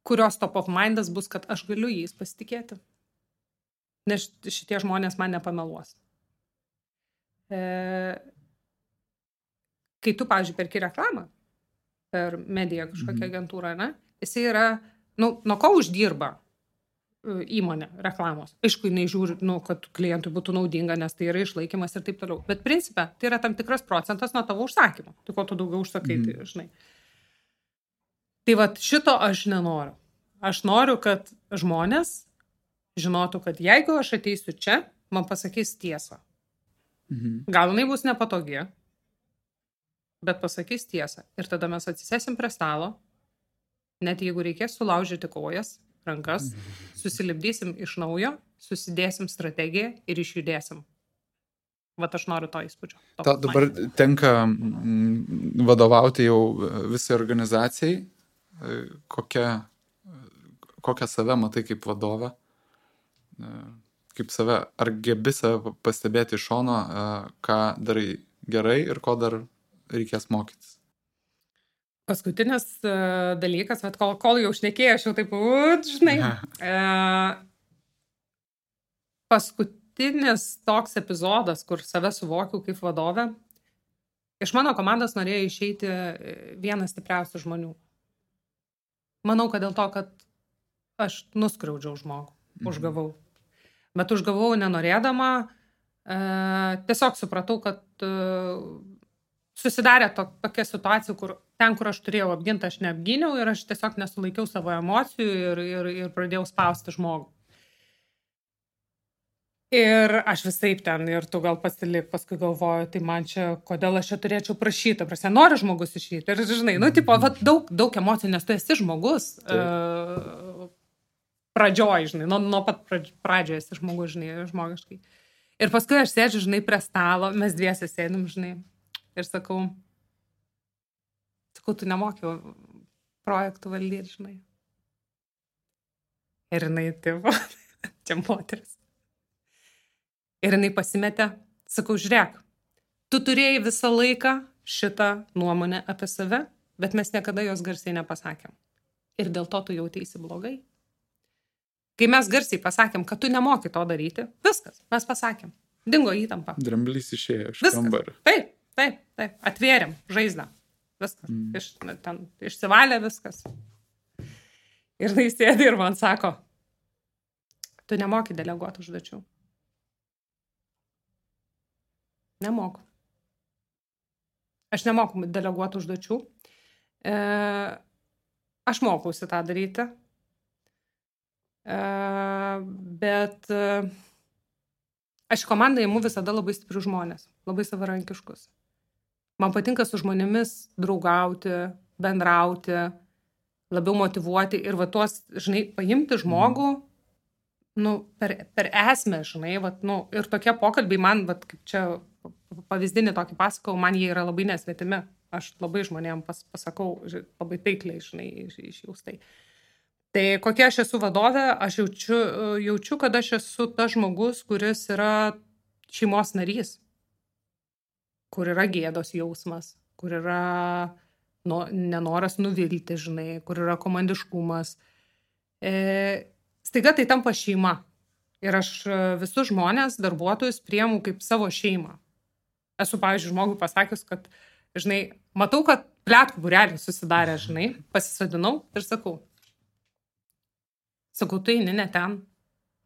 kurios top of mindas bus, kad aš galiu jais pasitikėti. Nes šitie žmonės man nepameluos. Kai tu, pavyzdžiui, perki reklamą per mediją kažkokią agentūrą, ne? Jisai yra, nuo ko uždirba įmonė reklamos. Aišku, jinai žiūri, kad klientui būtų naudinga, nes tai yra išlaikymas ir taip toliau. Bet principe, tai yra tam tikras procentas nuo tavo užsakymo. Tai ko tu daugiau užsakai, tai žinai. Tai vat šito aš nenoriu. Aš noriu, kad žmonės žinotų, kad jeigu aš ateisiu čia, man pasakys tiesą. Gal jinai bus nepatogi, bet pasakys tiesą. Ir tada mes atsisėsim prie stalo, net jeigu reikės sulaužyti kojas, rankas, susilipdysim iš naujo, susidėsim strategiją ir išjudėsim. Vat aš noriu to įspūdžio. Dabar tenka vadovauti jau visai organizacijai. Kokią save matai kaip vadovą? Kaip save, ar gebi save pastebėti iš šono, ką darai gerai ir ko dar reikės mokytis? Paskutinis dalykas, bet kol jau šnekėjau, aš jau taip, žinai, paskutinis toks epizodas, kur save suvokiau kaip vadovę, iš mano komandos norėjo išeiti vienas stipriausių žmonių. Manau, kad dėl to, kad aš nuskriaudžiau žmogų, užgavau. Bet užgavau nenorėdama, tiesiog supratau, kad susidarė tokia situacija, kur aš turėjau apginti, aš neapgyniau ir aš tiesiog nesulaikiau savo emocijų ir pradėjau spausti žmogų. Ir aš visaip ten, ir tu gal pasilik, paskui galvoju, tai man čia, kodėl aš čia turėčiau prašyti, prasme, nori žmogus išeiti. Ir žinai, daug emocijų, nes tu esi žmogus pradžioj, žinai, nuo pat pradžioje esi žmogus, žinai, žmogiškai. Ir paskui aš sėdžiu, žinai, prie stalo, mes dviese sėdim, žinai, ir sakau, tu nemoki projektų valdyti, žinai. Ir jinai, taip, čia moteris. Ir jinai pasimetė, sakau, žiūrėk, tu turėjai visą laiką šitą nuomonę apie save, bet mes niekada jos garsiai nepasakėm. Ir dėl to tu jauteisi blogai. Kai mes garsiai pasakėm, kad tu nemoki to daryti, viskas, mes pasakėm. Dingo įtampa. Dramblys išėjo iš kambario. Taip, atvėrėm žaizdą. Viskas, išsivalė viskas. Ir tai sėdi ir man sako, tu nemoki deleguoti užduočių. Nemoku. Aš nemoku deleguoti užduočių. Aš mokausi tą daryti. Bet aš komandą imu visada labai stiprių žmonės, labai savarankiškus. Man patinka su žmonėmis draugauti, bendrauti, labiau motyvuoti ir va tuos, žinai, paimti žmogų, per esmę, žinai, ir tokie pokalbiai man, kaip čia pavyzdinį tokį pasakau, man jie yra labai nesvetimi. Aš labai žmonėm pasakau, labai taikliai, žinai, išjaustai. Tai kokia aš esu vadovė, aš jaučiu, kad aš esu tas žmogus, kuris yra šeimos narys, kur yra gėdos jausmas, kur yra nenoras nuvilti, žinai, kur yra komandiškumas. Staiga tai tampa šeima. Ir aš visus žmonės, darbuotojus priimu kaip savo šeimą. Esu, pavyzdžiui, žmogui pasakius, kad, žinai, matau, kad pletkų būrelis susidarė, žinai, pasisodinau ir sakau, tu eini ne ten,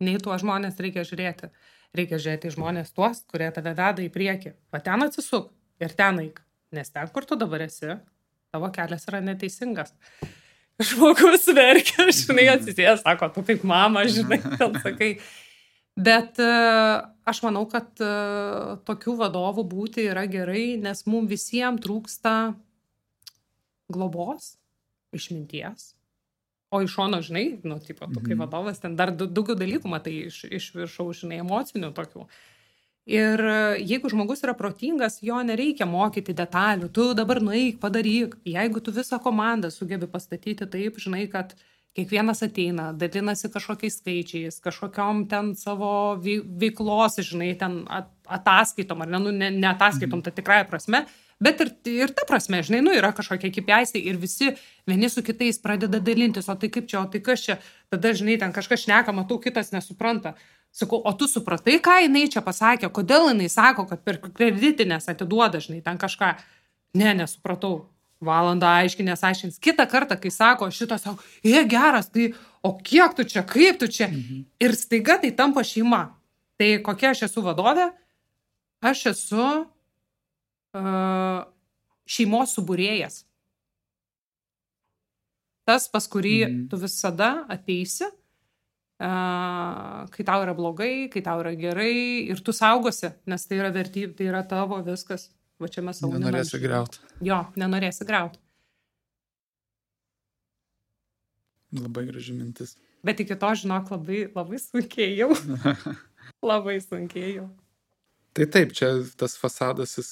nei tuo žmonės reikia žiūrėti. Reikia žiūrėti į žmonės tuos, kurie tave veda į priekį. Va ten atsisuk ir ten eik. Nes ten, kur tu dabar esi, tavo kelias yra neteisingas. Žmogus verkia, žinai, atsisės, sako, tu kaip mama, žinai, ten sakai. Bet aš manau, kad tokių vadovų būti yra gerai, nes mums visiems trūksta globos, išminties. O iš šono, žinai, tu kaip vadovas, ten dar daugiau dalykų matai iš viršaus, žinai, emocinių tokių. Ir jeigu žmogus yra protingas, jo nereikia mokyti detalių. Tu dabar nueik, padaryk. Jeigu tu visą komandą sugebi pastatyti taip, žinai, kad kiekvienas ateina, dalinasi kažkokiais skaičiais, kažkokiom ten savo veiklos, žinai, ten ataskaitom, ar ne ataskaitom, tai tikrąja prasme, Bet ir ta prasme, žinai, nu, yra kažkokie kipiaisai ir visi vieni su kitais pradeda dalintis, o tai kaip čia, o tai kas čia, tada, žinai, ten kažkas šneka, matau, kitas nesupranta. Sakau, o tu supratai, ką jinai čia pasakė, kodėl jinai sako, kad per kreditinės atiduoda, žinai, ten kažką. Ne, nesupratau. Valandą aiškins. Kitą kartą, kai sako, šitas sako, geras, tai o kiek tu čia, kaip tu čia? Ir staiga tai tampa šeima. Tai kokia aš esu vadovė? Aš esu šeimos subūrėjas. Tas, pas kurį tu visada ateisi, kai tau yra blogai, kai tau yra gerai ir tu saugosi, nes tai yra vertybė, tai yra tavo viskas. Va čia mes savo nenorėsi griauti. Jo, nenorėsi griauti. Labai graži mintis. Bet iki to, žinok, labai sunkėjau. Labai sunkėjau. Tai taip, čia tas fasadas jis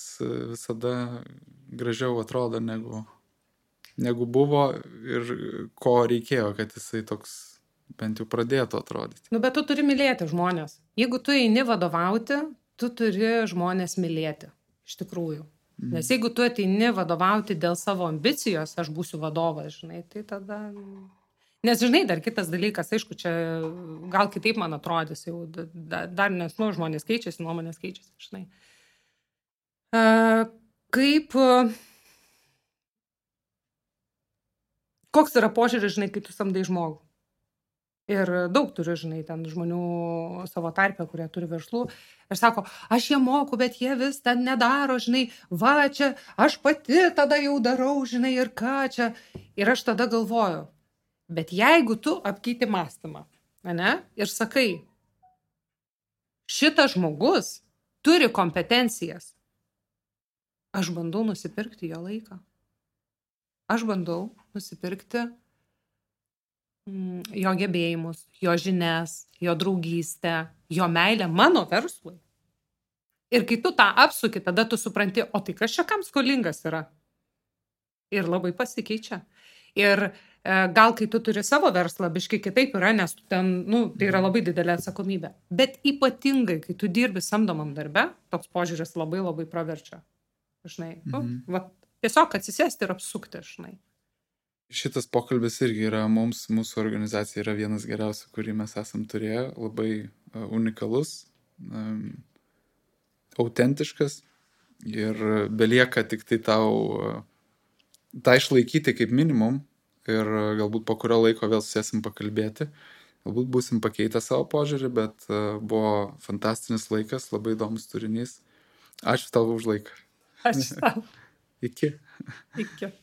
visada gražiau atrodo negu buvo ir ko reikėjo, kad jisai toks bent jau pradėtų atrodyti. Nu, bet tu turi mylėti žmonės. Jeigu tu eini vadovauti, tu turi žmonės mylėti. Iš tikrųjų. Nes jeigu tu ateini vadovauti dėl savo ambicijos, aš būsiu vadovas, žinai, tai tada... Nes, žinai, dar kitas dalykas, aišku, čia gal kitaip man atrodys, jau dar nes, nu, žmonės keičiasi, nuomonės keičiasi, žinai. Koks yra požiūris, žinai, kai tu samdai žmogų? Ir daug turiu, žinai, ten žmonių savo tarpę, kurie turi verslų. Ir sako, aš jie moku, bet jie vis ten nedaro, žinai, va čia, aš pati tada jau darau, žinai, ir ką čia. Ir aš tada galvoju, bet jeigu tu apkeiti mąstymą, ne, ir sakai, šitas žmogus turi kompetencijas, aš bandau nusipirkti jo laiką. Aš bandau nusipirkti jo gebėjimus, jo žinias, jo draugystę, jo meilę mano verslui. Ir kai tu tą apsuki, tada tu supranti, o tai kas čia kam skolingas yra? Ir labai pasikeičia. Ir gal kai tu turi savo verslą, biškai kitaip yra, nes tu ten, nu, tai yra labai didelė atsakomybė. Bet ypatingai, kai tu dirbi samdomam darbe, toks požiūris labai labai praverčia. Žinai, va, tiesiog atsisėsti ir apsukti, žinai. Šitas pokalbis irgi yra mūsų organizacija yra vienas geriausių, kurį mes esam turėję, labai unikalus, autentiškas ir belieka tik tai tau tą išlaikyti kaip minimum ir galbūt po kurio laiko vėl susėsim pakalbėti. Galbūt būsim pakeitę savo požiūrį, bet buvo fantastinis laikas, labai įdomus turinys. Ačiū tau už laiką. Ačiū tau. Iki. Iki.